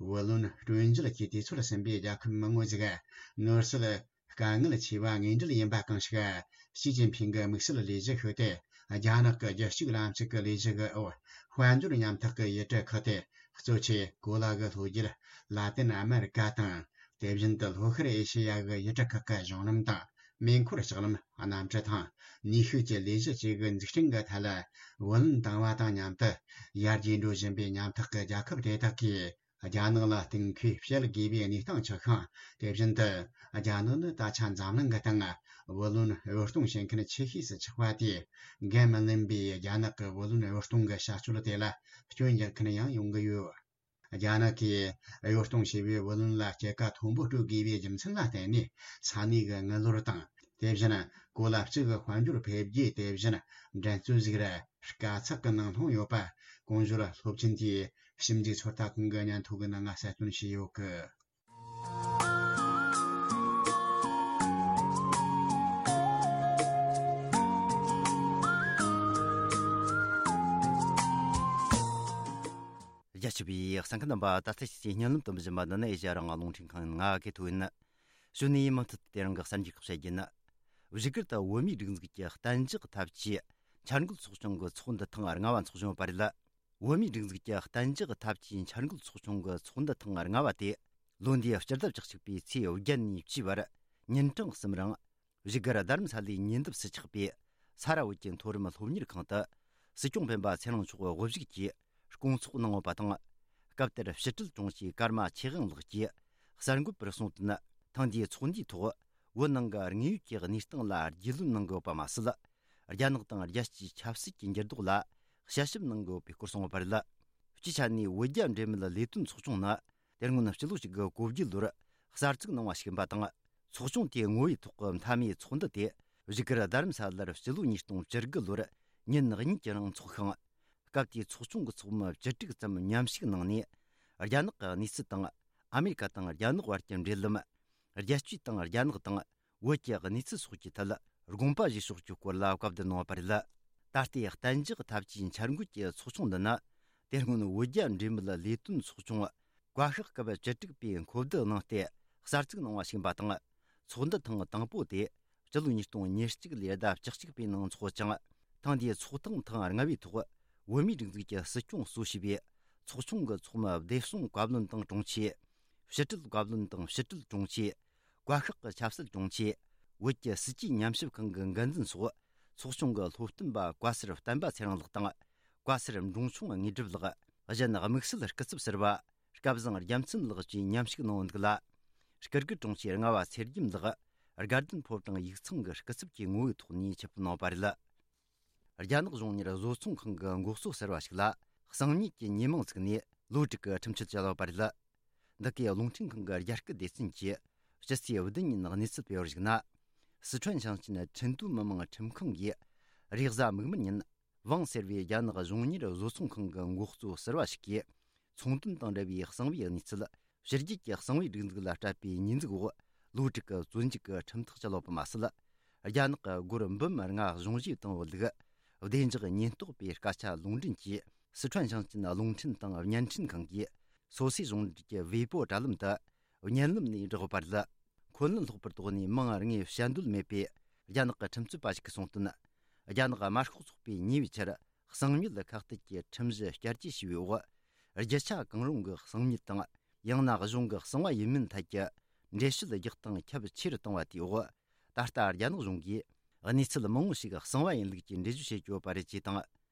བུ་ལོན་སྤྲོད་འཇལ་གྱི་དུས་ཚོད་ཟིན་པའི་རྒྱལ་ཁབ་མང་པོ་ཞིག་ནོར་སྲིད་དཀའ་ངལ་ཆེ་བ་དངོས་འབྲེལ་ཡིན་པ་གང་ཞིག་ཞི་ཅིན་ཕིང་གི་དམིགས་བསལ་ལས་གཞི་ཤིག་སྟེ། རྒྱ་ནག་གི་རྒྱལ་གཅེས་ལམ་ལུགས་ཀྱི་ལས་གཞི་གི་འོག་དཔལ་འབྱོར་མཉམ་ཐག་གི་ཡུལ་གྲུ་ཁག་སྟེ། གཙོ་ཆེ་གོ་ལ་གི་ལྷོ་རྒྱུད་ལ་ཏིན་ཨ་མེ་རི་ཀ་དང་། དེ་བཞིན་དུ་ལྷོ་ཤར་ཨེ་ཤེ་ཡ་གི་ཡུལ་གྲུ་ཁག་གི་གཞུང་ལམ་དང་། མེ་འཁོར་ལྕགས་ལམ། གནམ་གྲུ་དང་ནུས་ཤུགས་ཀྱི་ལས་གཞི་བཅས་ཀྱི་འཛུགས་སྐྲུན་གྱི་ཐད་ལ་བུ་ལོན་བཏང་བ་དང་མཉམ་དུ། ཡར་རྒྱས་འགྲོ་བཞིན་པའི་མཉམ་ཐག་གི་རྒྱལ་ཁབ་དེ་དག་གིས་རྒྱ་ནག་ལ་གཏོང་མཁོའི་བསྐྱལ་དགོས་པའི་གནས་སྟངས་ཆགས་ཤིང་། དེ་བཞིན་དུ། རྒྱ་ནག་ནི་ད་ཆ་འཛམ་གླིང་གི་སྟེང་བུ་ལོན་གཡོ་གཏོང་བྱེད་མཁན་ཆེ་ཤོས་སུ་ཆགས་པ་དེས། འགན་མི་ལེན་པའི་རྒྱ་ནག་གི་བུ་ལོན་གཡོ་གཏོང་གི་བྱ་སྤྱོད་དེ་ལ་སྐྱོན་རྒྱག་མཁན་ཡང་ཡོང་གི་ཡོད། རྒྱ་ནག་གིས་གཡོ་གཏོང་བྱས་པའི་བུ་ལོན་ལ་སྐྱེད་ཀ་མཐོན་པོ་སྤྲོད་དགོས་པའི་རྒྱུ་མཚན་ལ་བརྟེན་ནས། ས་གནས་ཀྱི་དངུལ་ལོར་དང་། དེ་བཞིན་གོ་ལ་གཅིག་གི་དཔལ་འབྱོར་འཕེལ་རྒྱས། དེ་བཞིན་འགྲན་རྩོད་ཟིག་ར་དཀའ་ཚེགས་ཀྱི་ནང་ལྷུང་ཡོད་པ། གོང་ཞོར་སློབ་ཆེན་དེའི་ཞིབ་འཇུག་ཚོད་ལྟ་ཁང་གི་སྙན་ཐོ་གི་ནང་ང་གསལ་སྟོན་བྱས་ཡོད་གི། རྒྱ་ཆེ་བའི་གསན་མཁན་རྣམ་པ། ད་ལྟ་ཁྱེད་ཀྱིས་སྙན་ལམ་དུ་འབུལ་བཞིན་པ་འདི་ནི་ཨེ་ཤ་ཡ་རང་དབང་རླུང་འཕྲིན་ཁང་ཡིན། ང་གི་ཐོ་ཡིན། གཞུག་ནས་མུ་མཐུད་དེ་རིང་གི་གསར་འགྱུར་ཁག་བཤད་རྒྱུ་ཡིན། བཞུགས་སྒར་དུ་བོད་མིའི་སྒྲིག་འཛུགས་ཀྱི་གཏན་འཇགས་ཐབས་ཇུས་འཆར་འགོད་ཚོགས་ཆུང་གི་ཚོགས་འདུ་ཐེངས་ལྔ་བ་འཚོགས་བྱུང་བ་རེད། བོད་མིའི་སྒྲིག་འཛུགས་ཀྱི་གཏན་འཇགས་ཐབས་ཇུས་འཆར་འགོད་ཚོགས་ཆུང་གི་ཚོགས་འདུ་ཐེངས་ལྔ་བ་དེ་ལོ་འདིའི་སྤྱི་ཟླ་བཅུ་གཅིག་པའི་ཚེས་བརྒྱད་ནས་བཅུའི་བར་ཉིན་གྲངས་གསུམ་རིང་། བཞུགས་སྒར་རྡ་རམ་ས་ལའི་ཉེ་འདབས་སུ་ཆགས་པའི་ས་ར་བོད་ཀྱི་མཐོ་རིམ་སློབ་གཉེར་ཁང་དུ། སྲིད་སྐྱོང་སྤེན་པ་ཚེ་རིང་མཆོག་དབུ་བཞུགས་ཀྱིས་ སྐོང་ཚོགས་གནང་ཡོད་པ་དང་། སྐབས་དེར་ཕྱི་དྲིལ་དྲུང་ཆེ་ཀརྨ་ཆོས་དབང་ལགས་ཀྱིས་གསར་འགོད་པར་གསུངས་དོན། ཐེངས་འདིའི་ཚོགས་འདུའི་ཐོག་བོད་ནང་གི་དངོས་ཡོད་ཀྱི་གནས་སྟངས་ལ་རྒྱུས་ལོན་གནང་གི་ཡོད་པ་མ་ཟད། རྒྱ་ནག་དང་རྒྱལ་སྤྱིའི་ཆབ་སྲིད་ཀྱི་འགྱུར་ལྡོག་ལ་དཔྱད་ཞིབ་གནང་གི་ཡོད་པའི་སྐོར་གསུངས་ཡོད་པ་རེད། སྤྱིའི་ཆ་ནས་བོད་རྒྱ་འབྲེལ་མོལ་ལས་དོན་ཚོགས་ཆུང་ནི། དེ་སྔོན་སྤྱི་ལོ་གཅིག་དགུ་གོ་བརྒྱད་ལོར་གསར་བཙུགས་གནང་བ་ཞིག་ཡིན་པ་དང་། ཚོགས་ཆུང་དེའི་ངོ་བོའི་ཐོག་གི་མཐའ་མའི་ཚོགས་འདུ་དེ་བཞུགས་སྒར་རྡ་རམ་ས་ལར་སྤྱི་ལོ་ཉིས་སྟོང་བཅུ་དགུ་ལོར་ཉིན་གཉིས་ཀྱི་རིང་འཚོགས་ཤིང་། སྐབས་དེའི་ཚོགས་ཆུང་གི་ཚོགས་མི་བཅུ་དྲུག་ཙམ་མཉམ་ཞུགས་གནང་ནས། རྒྱ་ནག་གི་གནས་ཚུལ་དང་། ཨ་མེ་རི་ཀ་དང་རྒྱ་ནག་བར་གྱི་འབྲེལ་ལམ། རྒྱལ་སྤྱི་དང་རྒྱ་ནག་དང་བོད་ཀྱི་གནས་ཚུལ་སོགས་ཀྱི་ཐད་དགོངས་པ་བཞེས་ཕྱོགས་ཀྱི་སྐོར་ལ་བཀའ་བསྡུར་གནང་བ་རེད། ད་ལྟའི་གཏན་འཇགས་འཐབ་ཇུས་འཆར་འགོད་ཀྱི་ཚོགས་ཆུང་འདི་ནི། དེ་སྔོན་བོད་རྒྱ་འབྲེལ་མོལ་ལས་དོན་ཚོགས་ཆུང་བཀའ་ཤག་སྐབས་བཅུ་དྲུག་པས་འཁོབ་བསྡུར་གནང་སྟེ་གསར་བཙུགས་གནང་བ་ཞིག་ཡིན་པ་དང་། ཚོགས་འདུ་ཐེངས་དང་པོ་དེ་སྤྱི་ལོ་ཉིས་སྟོང་ཉེར་གཅིག་ལོའི་ཟླ་བཅུ་གཅིག་པའི་ནང་འཚོགས་ཀྱང་། ཐེངས་འདིའི་ཚོགས་ཐེངས་ཐེངས་ལྔ་པའི་ཐོག་བོད་མིའི་སྒྲིག་འཛུགས་ཀྱི་སྲིད་སྐྱོང་གཙོ་བྱས་པའི་ཚོགས་ཆུང་གི་ཚོགས་མི་བདེ་སྲུང་བཀའ་བློན་དང་དྲུང་ཆེ། ཕྱི་དྲིལ་བཀའ་བློན་དང་ཕྱི་དྲིལ་དྲུང་ཆེ། བཀའ་ཤག་གི་ཆབ་སྲིད་དྲུང་ཆེ། བོད་ཀྱི་སྲིད་ཇུས་ཉམས་ཞིབ་ཁང་གི་འགན་འཛིན་སོགས། ཚོགས་ཆུང་གི་སློབ་སྟོན་པ་བཀའ་ཟུར་བསྟན་པ་ཚེ་རིང་ལགས་དང་། བཀའ་ཟུར་འབྲོང་ཆུང་དངོས་གྲུབ་ལགས། གཞན་དམིགས་བསལ་སྐུ་ཚབ་ཟུར་པ་སྐལ་བཟང་རྒྱལ་མཚན་ལགས་བཅས་མཉམ་ཞུགས་གནང་འདུག་ལ། སྐུ་སྒེར་དྲུང་ཆེ་རྔ་བ་ཚེ་རྒྱམ་ལགས་དགའ་ལྡན་ཕོ་བྲང་ཡིག་ཚང་གི་སྐུ་ཚབ་ཀྱི་ངོ་བོའི་ཐོག་ནས་ཆེད་ཕེབས་གནང་བ་རེད། རྒྱ་ནག་གཞུང་གཉེར་བཟོ་ཚོང་ཁང་གི་འགོ་གཙོ་ཟུར་པ་ཞིག་ལ་གསང་ཉུལ་གྱི་ཉེས་མིང་བཙུགས་ནས་ལོ་དྲུག་གི་ཁྲིམས་ཆད་བཅད་ཡོད་པ་རེད། འདི་གའི་རླུང་འཕྲིན་ཁང་གི་རྒྱ་སྐད་སྡེ་ཚན་གྱིས་ཕྱི་ཚེས་བདུན་ཉིན་གནས་ཚུལ་སྤེལ་བར་གཞིགས་ན། སི་ཁྲོན་ཞིང་ཆེན་ཁྲིན་ཏུའུ་མི་དམངས་ཁྲིམས་ཁང་གིས་རེས་གཟའ་མིག་དམར་ཉིན་ཝང་ཟེར་བའི་རྒྱ་ནག་གཞུང་གཉེར་བཟོ་ཚོང་ཁང་གི་འགོ་གཙོ་ཟུར་པ་ཞིག་གིས་ཚོང་དོན་དང་འབྲེལ་བའི་གསང་བའི་གནས་ཚུལ། ཕྱི་རྒྱལ་གྱི་གསང་བའི་སྒྲིག་འཛུགས་ལ་སྤྲད་པའི་ཉེས་འཛུགས་འོག་ལོ་དྲུག་གི་བཙོན་འཇུག་གི་ཁྲིམས་ཐག་བཅད་ཡོད་པ་མ་ཟད། རྒྱ་ནག་གི་སྒོར་འབུམ་ལྔ་གཞུང་བཞེས་བཏང་བའི་ལུགས། བདེ་འཇགས་ཉེན་རྟོག་པའི་སྐད་ཆ་ལུང་འདྲེན་གྱིས་སི་ཁྲོན་ཞིང་ཆེན་རླུང་འཕྲིན་དང་བརྙན་འཕྲིན་ཁང་གིས་སོ་སོའི་གཞུང་འབྲེལ་གྱི་ཝེ་པོ་དྲ་ལམ་དུ་བརྙན་ལམ་ནས་བསྒྲགས་ཡོད་པ་རེད། འཁོན་ལན་སློག་པར་དོགས་ནས་མིང་དངོས་བཤད་འདོད་མེད་པའི་རྒྱ་ནག་གི་ཁྲིམས་རྩོད་པ་ཞིག་གིས་གསུངས་དོན། རྒྱ་ནག་དམར་ཤོག་ཚོགས་པས་ཉེ་བའི་ཆར་གསང་ཉུལ་ཁ་གཏད་ཀྱི་ཁྲིམས་གཞི་བསྐྱར་བཅོས་བྱས་པའི་འོག་རྒྱུ་ཆ་གང་རུང་གི་གསང་ཉུལ་དང་། ཡང་ན་གཞུང་གི་གསང་བ་ཡིན་མིན་ཐད་ཀྱི་འགྲེལ་བཤད་རྒྱག་སྟངས་ཁྱབ་ཆེ་རུ་བཏང་བ་དེའི་འོག་ད་ལྟ་རྒྱ་ནག་གཞུང་གིས་གནས་ཚུལ་མང་བོ་ཞིག་གསང་བ་ཡིན་ལུགས་ཀྱི་འགྲེལ་བརྗོད་བྱེད་ཀྱི་ཡོད་པ་རེད་ཅེས་དང་།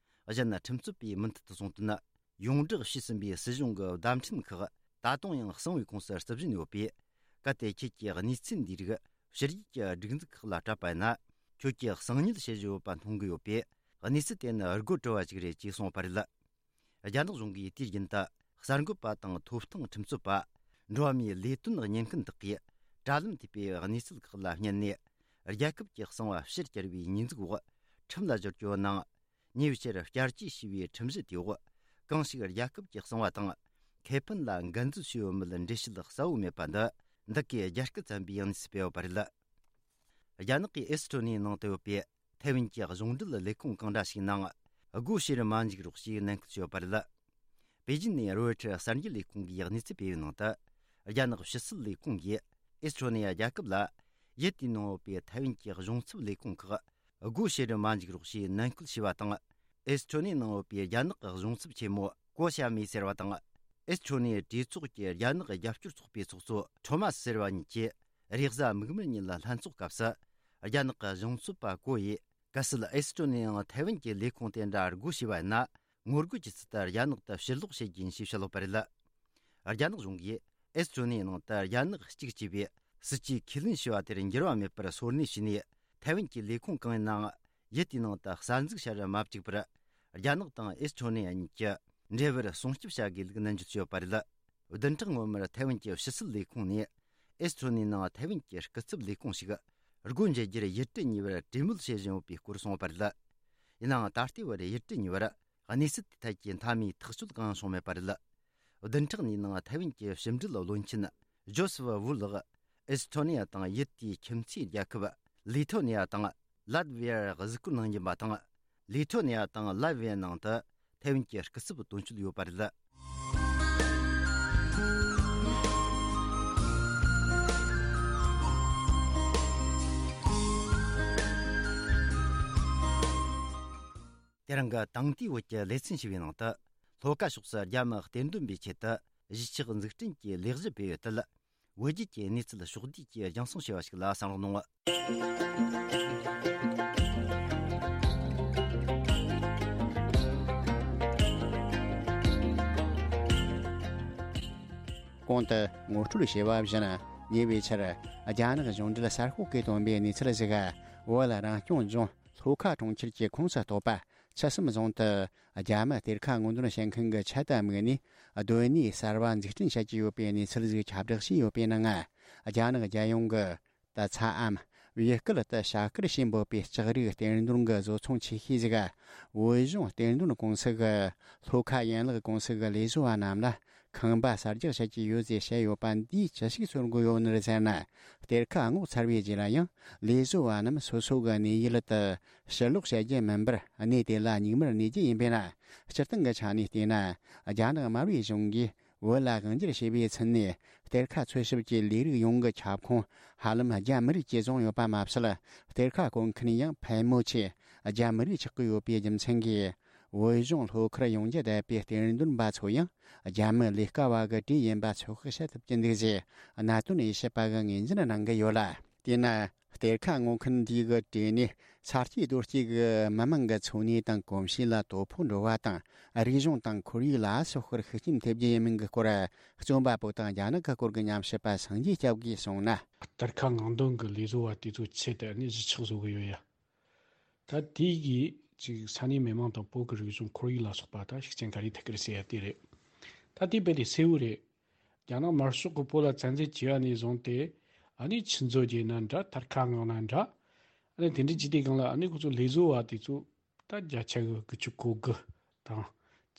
གཞན་ཁྲིམས་རྩོད་པས་མུ་མཐུད་དུ་གསུངས་དོན། ཡོངས་བསྒྲགས་བྱས་ཟིན་པའི་སྲིད་གཞུང་གི་བརྡ་འཕྲིན་ཁག་ད་དུང་ཡང་གསང་བའི་ཁོངས་སུ་རྩིབ་བཞིན་ཡོད་པས། གལ་ཏེ་ཁྱེད་ཀྱིས་གནས་ཚུལ་འདིའི་རིགས་ཕྱི་རྒྱལ་གྱི་སྒྲིག་འཛུགས་ཁག་ལ་སྤྲད་པ་ཡིན་ན། ཁྱོད་ཀྱིས་གསང་ཉུལ་བྱེད་བཞིན་ཡོད་པ་མཐོང་གི་ཡོད་པས། གནས་ཚུལ་དེ་ནི་དགོད་བྲོ་བ་ཞིག་རེད་ཅེས་གསུངས་པ་རེད། རྒྱ་ནག་གཞུང་གིས་དུས་རྒྱུན་དུ་གསར་འགོད་པ་དང་ཐོབ་ཐང་ཁྲིམས་རྩོད་པ། འགྲོ་བ་མིའི་ལས་དོན་གཉེར་མཁན་དག་གིས་དྲ་ལམ་ཐེབས་པའི་གནས་ཚུལ་ཁག་ལ་བརྙན་ནས། རྒྱལ་ཁབ་ཀྱི་གསང་བ་ཕྱིར་བསྐྱར་བའི་ཉེས་འཛུགས་འོག་ཁྲིམས་ལ་སྦྱོར་རྒྱུ་ནང་། ཉེ་བའི་ཆར་བསྐྱར་བཅོས་བྱས་པའི་ཁྲིམས་གཞི་དེའི་འོག་གང་ཞིག་རྒྱལ་ཁབ་ཀྱི་གསང་བ་དང་ཁེ་ཕན་ལ་འགན་འཛོལ་བྱས་ཡོད་མེད་འགྲེལ་བཤད་གསལ་བོ་མེད་པ་འདི། འདི་གའི་རྒྱ་སྐད་ཚན་པས་གནས་ཚུལ་སྤེལ་ཡོད་པ་རེད། རྒྱ་ནག་གིས་ཨེ་སི་ཁྲོ་ནི་ནང་དུ་ཡོད་པའི་ཐའེ་ཝན་གྱི་གཞུང་འབྲེལ་ལས་ཁུངས་གང་འདྲ་ཞིག་ནང་སྒོ་ཕྱེ་རུ་མ་འཇུག་རོགས་ཞེས་ནན་སྐུལ་བྱས་ཡོད་པ་རེད། པེ་ཅིན་ནས་རོའི་ཊར་གསར་འགྱུར་ལས་ཁུངས་ཀྱིས་གནས་ཚུལ་སྤེལ་བའི་ནང་དུ། རྒྱ་ནག་ཕྱི་སྲིད་ལས་ཁུངས་ཀྱིས་ཨེ་སི་ཁྲོ་ནི་ཡ་རྒྱལ་ཁབ་ལ་ཡུལ་དེའི་ནང་ཡོད་པའི་ཐའེ་ཝན་གྱི་གཞུང་ཚབ་ལས་ཁུངས་ཁག་སྒོ་ཕྱེ་རུ་མ་འཇུག་རོགས་ཞེས་ནན་སྐུལ་བྱས་པ་དང་། ཨེ་སི་ཁྲོ་ནི་ནང་ཡོད་པའི་རྒྱ་ནག་གི་གཞུང་ཚབ་ཆེན་མོ་ཀོ་ཞ་མི་ཟེར་བ་དང་། ཨེ་སི་ཁྲོ་ནི་གྲོས་ཚོགས་ཀྱི་རྒྱ་ནག་རྒྱབ་སྐྱོར་ཚོགས་པའི་ཚོགས་གཙོ་ཁྲོ་མ་སི་ཟེར་བ་གཉིས་ཀྱིས་རེས་གཟའ་མིག་དམར་ཉིན་ལ་ལྷན་ཚོགས་སྐབས་སུ། རྒྱ་ནག་གི་གཞུང་ཚབ་པ་ཀོ་ཡིས། གལ་སྲིད་ཨེ་སི་ཁྲོ་ནི་ཡང་ཐའེ་ཝན་གྱི་ལས་ཁུངས་དེ་འདྲ་སྒོ་ཕྱེ་བ་ཡིན་ན། ངོ་རྒོལ་གྱི་ཚུལ་དུ་རྒྱ་ནག་ཏུ་ཕྱིར་ལོག་བྱེད་རྒྱུ་ཡིན་ཞེས་བཤད་ཡོད་པ་རེད། རྒྱ་ནག་གཞུང་གིས་ཨེ་སི་ཁྲོ་ནི་ནང་དུ་རྒྱ་ནག་གཅིག་ཅེས་པའི་སྲིད་ཇུས་ཁས་ལེན་བྱས་པ་དེར་འགྱུར་བ་མེད་པར་སོར་གནས་བྱས་ནས། ཐའེ་ཝན་གྱི་ལས་ཁུངས་གང་ཡིན་ནའང་ཡུལ་དེའི་ནང་དུ་གསར་འཛུགས་བྱ་རུ་མ་བཅུག་པར། རྒྱ་ནག་དང་ཨེ་སི་ཁྲོ་ནི་ཡ་གཉིས་ཀྱི་འབྲེལ་བར་སྲུང་སྐྱོབ་བྱ་དགོས་ལུགས་ནན་བརྗོད་བྱས་ཡོད་པ་རེད། བདུན་ཕྲག་སྔོན་མར་ཐའེ་ཝན་གྱི་ཕྱི་སྲིད་ལས་ཁུངས་ནས་ཨེ་སི་ཁྲོ་ནི་ནང་ཐའེ་ཝན་གྱི་སྐུ་ཚབ་ལས་ཁུངས་ཤིག་སྒོ་འབྱེད་རྒྱུར་ཡུལ་གྲུ་གཉིས་བར་གྲོས་མོལ་བྱེད་བཞིན་ཡོད་པའི་སྐོར་གསུངས་ཡོད་པ་རེད། ཡིན་ནའང་ད་ལྟའི་བར་ཡུལ་གྲུ་གཉིས་བར་གནས་ཚུལ་དེ་ཐད་ཀྱི་མཐའ་མའི་ཐག་གཅོད་གང་ཡང་བྱུང་མེད་པ་རེད། བདུན་ཕྲག་གཉིས་ནང་ཐའེ་ཝན་གྱི་ཕྱི་འབྲེལ་བློན་ཆེན་ཇོ་སེཕ་ཝུ་ལགས་ཨེ་སི་ཁྲོ་ནི་ཡ་དང་ཡུལ་དེའི་ཁྱིམ་མཚེས་རྒྱལ་ཁབ་ལི་ཐོ་ནི་ཡ་དང་ལ་ཏི་ཝི་ཡར་གཟིགས་སྐོར་གནང་རྒྱུ་ཡིན་པ་དང་། ལི་ཐོ་ནི་ཡ་དང་ལ་ཏི་ཝི་ཡའི་ནང་དུ་ཐའེ་ཝན་གྱི་སྐུ་ཚབ་དོན་གཅོད་ཡོད་པ་རེད། དེ་རིང་གི་དེང་དུས་བོད་ཀྱི་ལེ་ཚན་ཞེས་པའི་ནང་དུ། ལྷོ་ཁ་ཕྱོགས་སུ་རྒྱ་མི་གཏེར་འདོན་པའི་ཆེད་དུ་གཞིས་ཆགས་འཛུགས་སྐྲུན་གྱི་ལས་གཞི་སྤེལ་ཡོད་དུས། བོད་བརྒྱུད་ཀྱི་གནས་ཚུལ་ཕྱོགས་བསྡུས་ཀྱིས་རྒྱང་སྲིང་བྱས་པ་ཞིག་ལ་གསན་རོགས་གནང་། གོང་དུ་ངོ་སྤྲོད་བྱས་པ་བཞིན། ཉེ་བའི་ཆར་རྒྱ་ནག་གཞུང་འབྲེལ་གསར་ཤོག་གིས་བཏོན་པའི་གནས་ཚུལ་ཞིག་བོད་རང་སྐྱོང་ལྗོངས་ལྷོ་ཁ་གྲོང་ཁྱེར་གྱི་ཁོངས་སུ་གཏོགས་པ་ཆུ་གསུམ་རྫོང་དུ་རྒྱ་མི་གཏེར་ཁ་སྔོག་འདོན་བྱེད་མཁན་གྱི་ཆེད་དུ་དམིགས་ནས་སྡོད་གནས་གསར་བ་འཛུགས་སྐྲུན་བྱ་རྒྱུ་ཡོད་པའི་གནས་ཚུལ་ཞིག་ཁྱབ་བསྒྲགས་བྱས་ཡོད་པའི་ནང་། རྒྱ་ནག་རྒྱལ་ཡོངས་ཀྱི་ད་ཚ་འམ་བོད་སྐད་དུ་བྱ་དཀར་ཞེས་འབོད་པའི་ལྕགས་རིགས་གཏེར་འདོན་གྱི་བཟོ་ཚོང་ཆེ་ཤོས་ཤིག་བོད་གཞུང་གཏེར་འདོན་ཀུང་སི་གི་ལྷོ་ཁ་ཡན་ལག་ཀུང་སི་གི་ལས་བཟོ་བ་རྣམས་ལ་ཁང་པ་གསར་རྒྱག་བྱེད་ཀྱི་ཡོད་ཅེས་བཤད་ཡོད་པ་འདིས་ཅི་ཞིག་གསུང་གི་ཡོད་ནི་རེད་ཟེར་ན། གཏེར་ཁ་སྔོག་ཚར་བའི་རྗེས་ལ་ཡང་ལས་བཟོ་བ་རྣམས་སོ་སོ་གི་གནས་ཡུལ་དུ་ཕྱིར་ལོག་བྱ་རྒྱུ་མིན་པར་གནས་དེ་ལ་སྙིགས་མར་གནས་རྒྱུ་ཡིན་པས་ན། སྤྱིར་བཏང་གི་ཆ་ནས་བལྟས་ན། རྒྱ་ནག་དམར་པོའི་གཞུང་གིས་བོད་ལ་དབང་སྒྱུར་བྱས་པའི་ཚུན་ནས་གཏེར་ཁ་འཚོལ་ཞིབ་ཀྱི་ལས་རིགས་ཡོངས་ཀྱི་ཁྱབ་ཁོངས་ཧ་ལམ་རྒྱ་མི་རིགས་ཀྱིས་བཟུང་ཡོད་པ་མ་ཟད། གཏེར་ཁ་བརྐོ་མཁན་ཡང་ཕལ་མོ་ཆེ་རྒྱ་མི་རིགས་ཆགས་ཀྱི་ཡོད་པའི་རྒྱུ་མཚན་གྱིས། བོད་གཞུང་ལྷོ་ཁར་ཡོང་རྒྱུ་བསྡད་པའི་གཏེར་འདོན་པ་ཚོ་ཡང་རྒྱ་མི་ལས་ཀ་བ་གི་གྲས་ཡིན་པ་ཚོད་དཔག་བྱེད་ཐུབ་ཀྱི་འདུག་ཅེས་གནད་དོན་དབྱེ་ཞིབ་པ་གིས་ངོས་འཛིན་གནང་གི་ཡོད་ལ། དེས་ན། གཏེར་ཁ་སྔོག་མཁན་འདིའི་གྲས་ནས་ས་སྐྱེས་རྡོ་སྐྱེས་ཀྱི་མི་མང་གི་འཚོ་གནས་དང་གོམས་གཤིས་ལ་དོ་ཕོག་འགྲོ་བ་དང་། རིག་གཞུང་དང་ཁོར་ཡུག་ལ་སོགས་པར་ཤུགས་རྐྱེན་ཐེབས་རྒྱུ་ཡིན་མིན་གྱི་སྐོར། རྩོམ་པ་པོ་དང་རྒྱ་ནག་གི་སྐོར་གྱི་ཉམས་ཞིབ་པ་སངས་རྒྱས་སྐྱབས་ཀྱིས་གསུངས་ན། གཏེར་ཁ་སྔོག་འདོན་གྱི་ལས་བཟོ་བ་དེ་ཚོའི་ཆེད་དུ་ནི་གཞིས་ཆགས་བཟོ་གི་ཡོད་ཡ། ད་དེ་གིས་ཅིག་ས་གནས་མི་མང་དང་བོད་ཀྱི་རིག་གཞུང་ཁོར་ཡུག་ལ་སོགས་པ་ད་ཤུགས་རྐྱེན་ག་རེ་ཐེབས་ཀྱི་རེད་ཟེར་ཡ་དེ་རེད། ད་དེ་རྦད་དེ་གསལ་བོ་རེད། རྒྱ་ནག་དམར་ཤོག་གིས་བོད་ལ་བཙན་འཛུལ་བྱས་པ་ནས་བཟུང་སྟེ། ཨ་ནི་ཆུ་མཛོད་བརྒྱུད་ན་འདྲ། གཏེར་ཁ་སྔོག་ན་འདྲ། ཨ་ནི་དེ་འདྲ་བྱས་དུས་སྒང་ལ་ཨ་ནི་ཁོ་ཚོ་ལས་བཟོ་བ་དེ་ཚོ་ད་བརྒྱ་ཆ་གི་དགུ་བཅུ་གོ་དགུ་དང་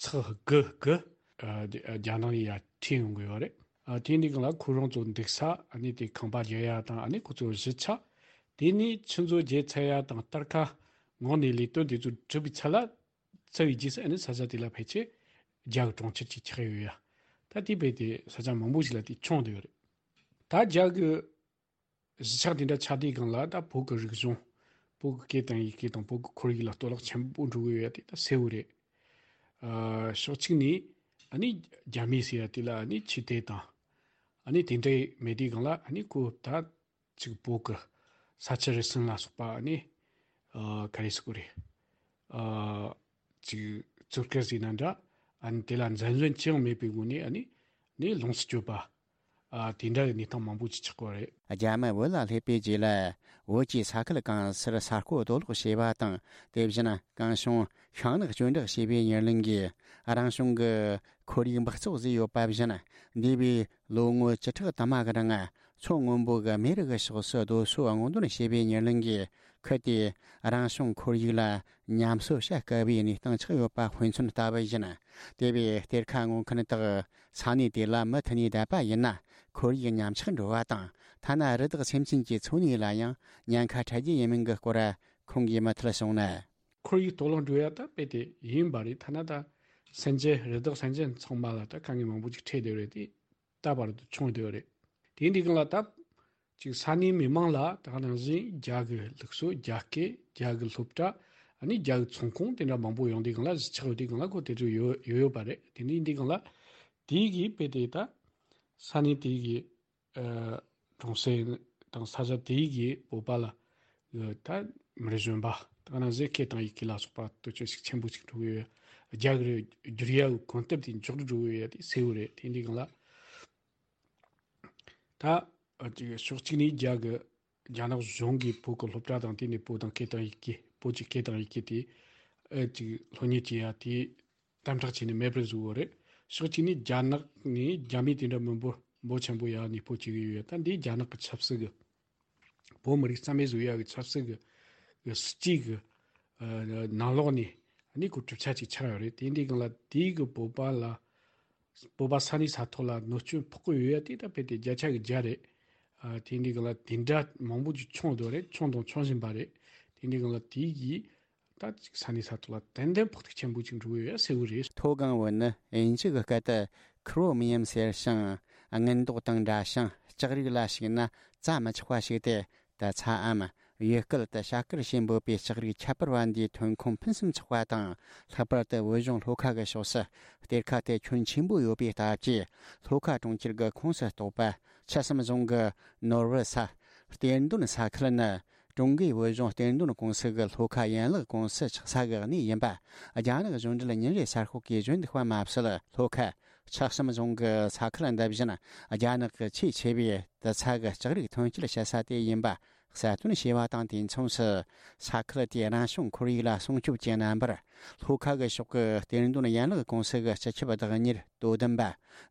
ཚེག་དགུ་དགུ་ཨ་རྒྱ་ནག་ནས་ཡར་ཁྲིད་ཡོང་གི་ཡོད་རེད། ཨ་དེ་འདྲའི་སྒང་ལ་ཁོ་རང་ཚོ་འདུག་ས། ཨ་ནི་དེ་ཁང་པ་རྒྱག་ཡ་དང་། ཨ་ནི་ཁོ་ཚོ་གཞིས་ཆགས། དེ་ནས་ཆུ་མཛོད་བརྒྱུད་ཚར་ཡ་དང་། གཏེར་ཁ་སྔོག་ནས་ལས་དོན་དེ་ཚོ་གྲུབ་པའི་ཚད་ལ། ཚར་བའི་རྗེས་སུ་ཨ་ནི་ས་ཆ་དེ་ལ་ཕལ་ཆེར་རྒྱ་གི་གྲོང་ཁྱེར་གཅིག་ཆགས་ཡོད་ཡ། ད་དེ་རྦད་དེ་ས་ཆ་མང་པོ་ཞིག་ལ་དེ་ཁྱོན་བསྡད་ཡོད་རེད། ད་རྒྱ་གི་གཞིས་ཆགས་དེ་འདྲ་ཆགས་དུས་སྒང་ལ་ད་བོད་ཀྱི་རིག་གཞུང་། བོད་ཀྱི་སྐད་དང་ཡི་གེ་དང་བོད་ཀྱི་ཁོར་ཡུག་ལ་གཏོར་བརླག་ཆེན་པོ་འགྲོ་གི་ཡོད་ཡ་དེ་ད་གསལ་བོ་རེད། ཨ་ཕྱོགས་གཅིག་ནས་ཨ་ནི་རྒྱ་མི་ཟེར་ཡ་དེ་ལ་ཨ་ནི་ཆོས་དད་དང་། ཨ་ནི་དེ་འདྲ་མེད་དུས་སྒང་ལ་ཨ་ནི་ཁོ་ད་ཅིག་བོད་ཀྱི་ས་ཆུ་རུལ་སུངས་ལ་སོགས་པ་ཨ་ནི་ཨ་ག་རེ་ཟེར་དགོས་རེད། ཨ་ཅིག་བཙོག་གེ་ཟེར་ན་འདྲ། ཨ་ནི་དེ་ལ་འཛེམ་ཟོན་ཅི་ཡང་མེད་པའི་སྒོ་ནས་ཨ་ནི་ནི་ལོངས་སུ་སྤྱོད་པ། ཨ་དེ་འདྲ་གི་གནས་སྟངས་མང་པོ་ཅིག་ཆགས་ཀྱི་ཡོད་རེད། རྒྱ་མི་བོད་ལ་སླེབས་པའི་རྗེས་ལ། བོད་ཀྱི་ས་ཁུལ་གང་སར་ས་རྐོ་རྡོ་སློག་བྱས་པ་དང་། དེ་བཞིན་གངས་གཞིར་ཤིང་ནགས་གཅོད་འབྲེག་བྱས་པའི་ཉེར་ལེན་གྱིས། རང་བྱུང་གི་ཁོར་ཡུག་འབག་བཙོག་བཟོས་ཡོད་པ་བཞིན། འདས་པའི་ལོ་ངོ་བཅུ་ཕྲག་དུ་མ་གི་རིང་། མཚོ་སྔོན་པོ་གི་མེ་རི་གི་ཕྱོགས་སུ་རྡོ་སོལ་སྔོག་འདོན་བྱས་པའི་ཉེར་ལེན་གྱིས། ཁུལ་དེའི་རང་བྱུང་ཁོར་ཡུག་ལ་ཉམས་གསོ་བྱ་དཀའ་བའི་གནས་སྟངས་ཆགས་ཡོད་པ་དཔེ་མཚོན་ལྟ་བུ་ཡིན། དེ་བས་གཏེར་ཁ་སྔོག་མཁན་དག་ས་གནས་དེ་ལ་མུ་མཐུད་ནས་བསྡད་པ་ཡིན་ན། ཁོར་ཡུག་ཉམས་ཆག་འགྲོ་བ་དང་། ཐ་ན་རི་དྭགས་སེམས་ཅན་གྱི་འཚོ་གནས་ལ་ཡང་ཉེན་ཁ་འཕྲད་རྒྱུ་ཡིན་མིན་གྱི་སྐོར་ཁོང་གིས་མུ་མཐུད་གསུངས་ན། ཁོར་ཡུག་གཏོར་བརླག་འགྲོ་ཡ་ད་རྦད་དེ་ཡིན་པ་རེད། ཐ་ན་ད་སེམས་ཅན། རི་དྭགས་སེམས་ཅན་ཚང་མ་ལ་ད་དཀའ་ངལ་མང་པོ་ཅིག་འཕྲད་བསྡད་ཡོད་རེད་དེ། ད་བར་དུ་བྱུང་བསྡད་ཡོད་རེད། དེ་འདི་སྒང་ལ་ད་ཅིག་ས་གནས་མི་མང་ལ་ད་ག་ནང་བཞིན་རྒྱ་གི་ལུགས་སྲོལ། རྒྱ་སྐད། རྒྱ་གི་སློབ་གྲྭ། ཨ་ནི་རྒྱ་གི་ཚོང་ཁང་དེ་འདྲ་མང་པོ་ཡོང་དུས་སྒང་ལ། གཞིས་ཆགས་ཡོད་དུས་སྒང་ལ་ཁོ་དེ་ཚོ་ཡོད་ཡོད་ཡོད་པ་རེད། དེ་འདི་འདི་སྒང་ལ་དེ་གིས་རྦད་དེ་ད་ས་གནས་དེ་གི་ཨ་གྲོང་གསེབ་དང་ས་ཆ་དེ་གི་བོད་པ་ལ་ད་མི་གཞོན་པ་ད་ག་ནང་བཞིན་སྐད་དང་ཡི་གེ་ལ་སོགས་པ་དུ་ཅོ་ཞིག་ཆེན་པོ་ཞིག་འགྲོ་གི་ཡོད། རྒྱ་གི་བསྒྱུར་ཡ་གི་གོམ་སྟབས་དེ་མགྱོགས་རུ་འགྲོ་གི་ཡོད་ཡ་དེ་གསལ་བོ་རེད། དེ་འདི་སྒང་ལ་ད་ཨ་ཅིག་ཕྱོགས་གཅིག་ནས་རྒྱ་གི་རྒྱ་ནག་གཞུང་གིས་བོད་ཀྱི་སློབ་གྲྭ་དང་། དེ་ནས་བོད་དང་སྐད་དང་ཡི་གེ། བོད་ཀྱི་སྐད་དང་ཡི་གེ་དེ་ཨ་ཅིག་སློབ་གཉེར་བྱེད་ཡ་དེ་དམ་དྲག་བྱས་ནས་མེད་པར་བཟོས་ཡོད་རེད། ཕྱོགས་གཅིག་ནས་རྒྱ་ནག་ནས་རྒྱ་མི་དེ་འདྲ་མི་འབོར་འབོར་ཆེན་པོ་ཡར་གནས་སྤོ་བྱེད་ཀྱི་ཡོད། ད་འདི་རྒྱ་ནག་གི་ཆབ་སྲིད་ཀྱི། བོད་མི་རིགས་རྩ་མེད་བཟོ་ཡ་གི་ཆབ་སྲིད་ཀྱི་གི་སྲིད་ཇུས་ཀྱི་ཨ་ནང་ལོགས་ནས་ཨ་ནི་ཁོ་གྲུབ་ཆ་ཅིག་ཆགས་ཡོད་རེད། དེ་འདི་སྒང་ལ་དེའི་གི་བོད་པ་ལ། བོད་པ་ས་གནས་ས་ཐོག་ལ་གནོད་སྐྱོན་ཕོག་གི་ཡོད་ཡ་དེ་ད་རྦད་དེ་བརྒྱ་ཆ་གི་བརྒྱ་རེད། ཨ་དེ་འདི་སྒང་ལ་དེ་འདྲ་མང་པོ་ཅིག་བྱུང་བསྡད་རེད། བྱུང་དང་འབྱུང་བཞིན་པ་རེད། དེ་འདི་སྒང་ལ་དེ་གིས་ད་ཅིག་ས་གནས་ས་ཐོག་ལ་ཏན་ཏན་ཕོག་ཐུག་ཆེན་པོ་ཅིག་འགྲོ་གི་ཡོད་ཡ་གསལ་བོ་རེད། མཐོ་སྒང་བོད་ནི་དབྱིན་ཇི་གི་སྐད་དུ་Chromium ཟེར་ཞིང་། དངུལ་མདོག་དང་འདྲ་ཞིང་། ལྕགས་རིགས་ལ་ཞུགས་ན་བཙའ་མི་ཆོག་པ་ཞིག་སྟེ། ད་ཚའམ་ཡུལ་སྐད་དུ་བྱ་དཀར་ཞེས་འབོད་པའི་ལྕགས་རིགས་ཁྱད་པར་བ་འདིའི་ཐོན་ཁུངས་ཕུན་སུམ་ཚོགས་པ་དང་། ལྷག་པར་དུ་བོད་གཞུང་ལྷོ་ཁ་གི་ཕྱོགས་སུ་གཏེར་ཁ་དེ་ཁྱོན་ཆེན་པོ་ཡོད་པའི་སྟབས་ཀྱིས། ལྷོ་ཁ་གྲོང་ཁྱེར་གྱི་ཁོངས་སུ་གཏོགས་པ་ཆུ་གསུམ་རྫོང་གི་ནོར་བུ་ས་གཏེར་འདོན་ས་ཁུལ་ནི། ཀྲུང་གོའི་བོད་གཞུང་གཏེར་འདོན་ཀུང་སི་གི་ལྷོ་ཁ་ཡན་ལག་ཀུང་སི་ཆགས་ས་གི་གནས་ཡིན་པ། རྒྱ་ནག་གཞུང་འབྲེལ་ཉིན་རེའི་གསར་ཤོག་གིས་བརྗོད་འདུག་པ་མ་ཟད། ལྷོ་ཁ་ ཆགས་སམ་རྫོང་གི་ས་ཁུལ་འདི་བཞིན་རྒྱ་ནག་གི་ཆེས་ཆེ་བའི་དུད་ཚང་གི་ལྕགས་རིགས་ཐོན་སྐྱེད་བྱེད་ས་དེ་ཡིན་པ་གསལ་སྟོན་བྱས་པ་དང་དུས་མཚུངས་སུ། ས་ཁུལ་དེའི་རང་བྱུང་ཁོར་ཡུག་ལ་སྲུང་སྐྱོབ་ཀྱི་རྣམ་པར། ལྷོ་ཁ་གི་ཕྱོགས་ཀྱི་གཏེར་འདོན་ཡན་ལག་ཀུང་སི་གི་སྤྱི་ཁྱབ་བདག་གཉེར་དོ་དམ་པ་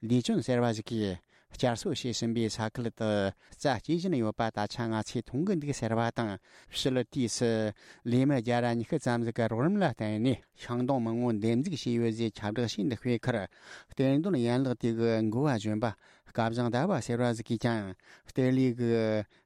ལི་ཅུན་ཟེར་བ་ཞིག་གིས། བསྐྱར་གསོ་བྱས་ཟིན་པའི་ས་ཁུལ་དུ་རྩྭ་སྐྱེས་བཞིན་ཡོད་པ་ད་ཆ་ང་ཚོས་མཐོང་གི་འདུག་ཟེར་བ་དང་། ཕྱི་ལོ་དུས་སུ་ལས་མི་བརྒྱ་ར་ཉི་ཤུ་ཙམ་ཟིག་གི་རོགས་རམ་ལ་བརྟེན་ནས་ཤིང་སྡོང་མང་བོ་འདེབས་འཛུགས་བྱས་ཡོད་ཅེས་ཁྱབ་བསྒྲགས་བྱས་འདུག་པའི་ཁར། གཏེར་འདོན་ཡན་ལག་དེ་གི་འགོ་བ་གཞོན་པ་སྐལ་བཟང་ཟླ་བ་ཟེར་བ་ཟིག་གིས་ཀྱང་། གཏེར་ལས་ཀྱི་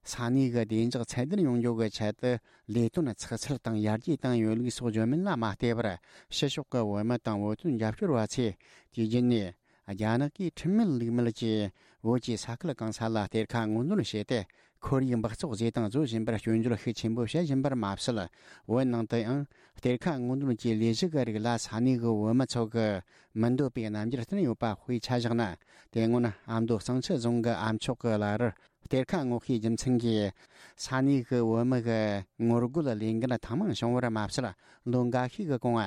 ས་གནས་ཀྱི་བདེ་འཇགས་ཚད་ལྡན་ཡོང་རྒྱུ་གི་ཆེད་དུ་ལས་དོན་ཚགས་ཚུད་དང་ཡར་རྒྱས་བཏང་ཡོད་ལུགས་སོགས་བརྗོད་མིན་ལ་མ་བལྟས་པར། ཕྱི་ཕྱོགས་ཀྱི་བོད་མི་དང་བོད་དོན་རྒྱབ་སྐྱོར་བ་ཚོས་དུས་རྒྱུན་ནས། རྒྱ་ནག་གིས་ཁྲིམས་མེད་ལུགས་མེད་ཀྱིས་བོད་ཀྱི་ས་ཁུལ་གང་ས་ལ་གཏེར་ཁ་སྔོག་འདོན་བྱས་ཏེ། ཁོར་ཡུག་འབག་བཙོག་བཟོས་དང་བཟོ་བཞིན་པར་སྐྱོན་བརྗོད་ཤུགས་ཆེན་པོ་བྱེད་བཞིན་པར་མ་ཟད། བོད་ནང་དུ་ཡང་གཏེར་ཁ་སྔོག་འདོན་གྱི་ལས་གཞི་གི་རིགས་ལ་ས་གནས་ཀྱི་བོད་མི་ཚོ་གི་མི་འདོད་པའི་རྣམ་འགྱུར་བསྟན་ཡོད་པ་དཔེ་ཆ་བཞག་ན། དེ་སྔོན་ཨ་མདོ་གཙང་ཆུ་རྫོང་གི་ཨ་མཆོག་གི་བླ་རུ་གཏེར་ཁ་སྔོག་ཤེས་རྒྱུ་མཚན་གྱིས་ས་གནས་ཀྱི་བོད་མི་གི་ངོ་རྒོལ་ལས་འགན་ཐེངས་མང་བྱུང་བར་མ་ཟད། ལོ་འགའ་ཤས་ཀྱི་གོང་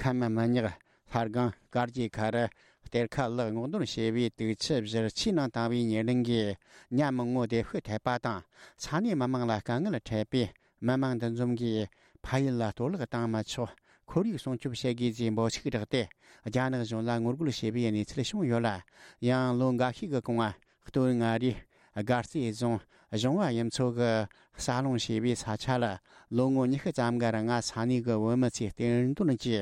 ཁམས་མི་ཉག་ལྷ་སྒང་དཀར་རྒྱལ་ཁ་རུ་གཏེར་ཁ་ལ་སྔོག་འདོན་བྱས་པའི་དུག་ཆུ་བཞུར་ཆུའི་ནང་བཏང་བའི་ཉེ་རིང་གི་ཉ་མང་བོ་བདེ་ཤོས་ཐེབས་པ་དང་། ས་གནས་མི་མང་ལ་དཀའ་ངལ་འཕྲད་པས། མི་མང་འདུ་འཛོམས་ཀྱིས་ཕ་ཡུལ་ལ་གཏོར་བརླག་བཏང་མི་ཆོག་ཁོར་ཡུག་སྲུང་སྐྱོབ་བྱེད་དགོས་ཅེས་འབོད་ཚིག་བསྒྲགས་ཏེ། རྒྱ་ནག་གཞུང་ལ་ངོ་རྒོལ་བྱས་པའི་གནས་ཚུལ་བྱུང་ཡོད་ལ། ཡང་ལོ་འགའ་ཤས་ཀྱི་གོང་། སྟོད་མངའ་རིས་དགའ་རྩེ་རྫོང་གཞུང་བ་ཡུལ་ཚོ་གི་ས་སློང་བྱས་པའི་ས་ཆ་ལ་ལོ་ངོ་ཉི་ཤུ་ཙམ་གྱི་རིང་ས་གནས་ཀྱི་བོད་མི་ཚོས་གཏེར་འདོན་གྱི་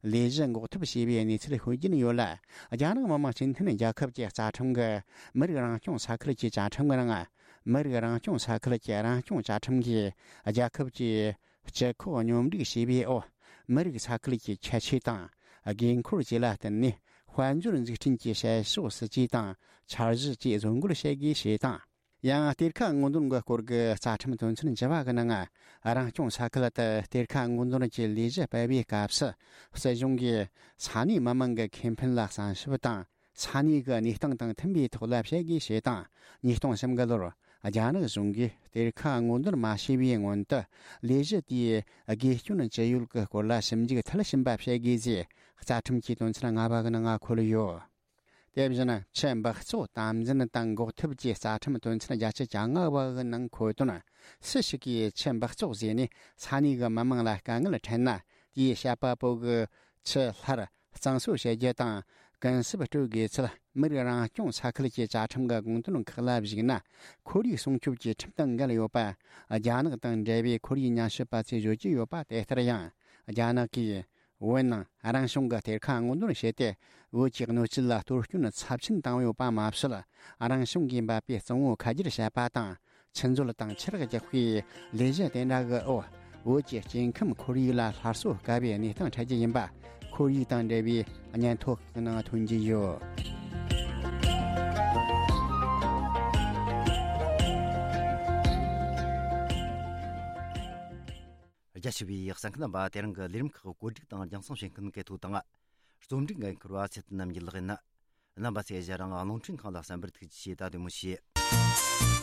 ལས་གཞི་འགོག་ཐབས་བྱས་པའི་གནས་ཚུལ་ཤོད་ཀྱིན་ཡོད་ལ། རྒྱ་ནག་མི་དམངས་སྤྱི་མཐུན་རྒྱལ་ཁབ་ཀྱི་རྩ་ཁྲིམས་ཀྱི་མི་རིགས་རང་སྐྱོང་ས་ཁུལ་གྱི་བཅའ་ཁྲིམས་ཀྱི་ནང་། མི་རིགས་རང་སྐྱོང་ས་ཁུལ་གྱི་རང་སྐྱོང་བཅའ་ཁྲིམས་ཀྱིས་རྒྱལ་ཁབ་ཀྱི་སྤྱི་ཁོག་སྙོམས་སྒྲིག་བྱས་པའི་འོག་མི་རིགས་ས་ཁུལ་གྱི་ཁྱད་ཆོས་དང་། དགོས་མཁོར་བཅས་ལ་བརྟེན་ནས་དཔལ་འབྱོར་འཛུགས་སྐྲུན་གྱི་བྱེད་ཕྱོགས་སྲིད་ཇུས་དང་འཆར་གཞི་བཅས་བཟོ་འགོད་བྱེད་དགོས་ཞེས་དང་། ཡང་གཏེར་ཁ་སྔོག་འདོན་གྱི་སྐོར་གྱི་རྩ་ཁྲིམས་དོན་ཚན་བཅུ་བ་གི་ནང་། རང་སྐྱོང་ས་ཁུལ་དུ་གཏེར་ཁ་སྔོག་འདོན་གྱི་ལས་གཞི་སྤེལ་བའི་སྐབས་སུ། སྲིད་གཞུང་གིས་ས་གནས་མི་མང་གི་ཁེ་ཕན་ལ་བསམ་ཞིབ་དང་། ས་གནས་ཀྱི་གནས་སྟངས་དང་མཐུན་པའི་ཐོག་ལ་བྱེད་དགོས་ཞེས་དང་། ཉིས་སྟོང་གསུམ་གི་ལོར་རྒྱ་ནག་གཞུང་གིས་གཏེར་ཁ་སྔོག་འདོན་མ་བྱས་པའི་སྔོན་དུ། ལས་གཞི་དེའི་དགོས་སྐྱོན་ཅི་ཡོད་ཀྱི་སྐོར་ལ་ཞིབ་འཇུག་མཐིལ་ཕྱིན་པ་བྱེད་དགོས་ཞེས་རྩ་ཁྲིམས་ཀྱི་དོན་ཚན་ལྔ་པ་གི་ནང་འཁོད་ཡོད། དེ་བཞིན་ཆུ་འབག་བཙོག་དམ་འཛིན་དང་འགོག་ཐབས་ཀྱི་རྩ་ཁྲིམས་དོན་ཚན་བརྒྱད་ཅུ་གྱ་ལྔ་པ་གི་ནང་འཁོད་དོན། སུ་ཞིག་གིས་ཆུ་འབག་བཙོག་བཟོས་ནས་ས་གནས་ཀྱི་མི་མང་ལ་དཀའ་ངལ་འཕྲད་ན། དེའི་བཤད་པ་པོ་གི་ཆུ་སླར་གཙང་བཟོ་བྱེད་རྒྱུ་དང་། གུན་གསབ་སྤྲོད་དགོས་ཚུལ། མི་རིགས་རང་སྐྱོང་ས་ཁུལ་གྱི་བཅའ་ཁྲིམས་ཀྱི་དགོངས་དོན་ཁག་ལ་གཞིགས་ན། ཁོར་ཡུག་སྲུང་སྐྱོབ་ཀྱི་ཁྲིམས་དང་འགལ་ཡོད་པ། རྒྱ་ནག་དང་འབྲེལ་བའི་ཁོར་ཡུག་ཉམས་ཞིབ་པ་ཚོས་བརྗོད་ཀྱི་ཡོད་པ་དེ་ལྟར་ཡང་། རྒྱ་ནག་གིས་བོད་ནང་རང་བྱུང་གི་གཏེར་ཁ་སྔོག་འདོན་བྱས་ཏེ། བོད་ཀྱི་སྣོད་བཅུད་ལ་གཏོར་སྐྱོན་ཚབས་ཆེན་བཏང་ཡོད་པ་མ་ཟད། རང་བྱུང་གིས་འབབ་པའི་གཙང་བོ་ཁ་བསྒྱུར་བྱས་པ་དང་། ཆུ་མཛོད་དང་ཆུ་རགས་རྒྱག་པའི་ལས་གཞི་དེ་འདྲ་གི་འོག་བོད་ཀྱི་སྐྱེ་ཁམས་ཁོར་ཡུག་ལ་སླར་གསོ་དཀའ་བའི་གནས་སྟངས་འཕྲད་ཀྱི་ཡིན་པ། ཁོར་ཡུག་དང་འབྲེལ་བའི་སྙན་ཐོ་ཁག་ནང་ཐོན་གྱི་ཡོད། རྒྱ་ཆེ་བའི་གསན་མཁན་རྣམ་པ། དེ་རིང་གི་ལས་རིམ་ཁག་བཀོད་སྒྲིག་དང་རྒྱང་སྲིང་བྱེད་མཁན་གལ་ཐོ་དང་། རྩོམ་སྒྲིག་འགན་འཁུར་བ་ཚེ་བརྟན་རྣམ་རྒྱལ་ལགས་ཡིན། རྣམ་པ་ཚོས་གཞན་རང་རླུང་འཕྲིན་ཁང་ལ་གསན་པར་ཐུགས་རྗེ་ཆེ། ད་དེ་མོ་བྱེད།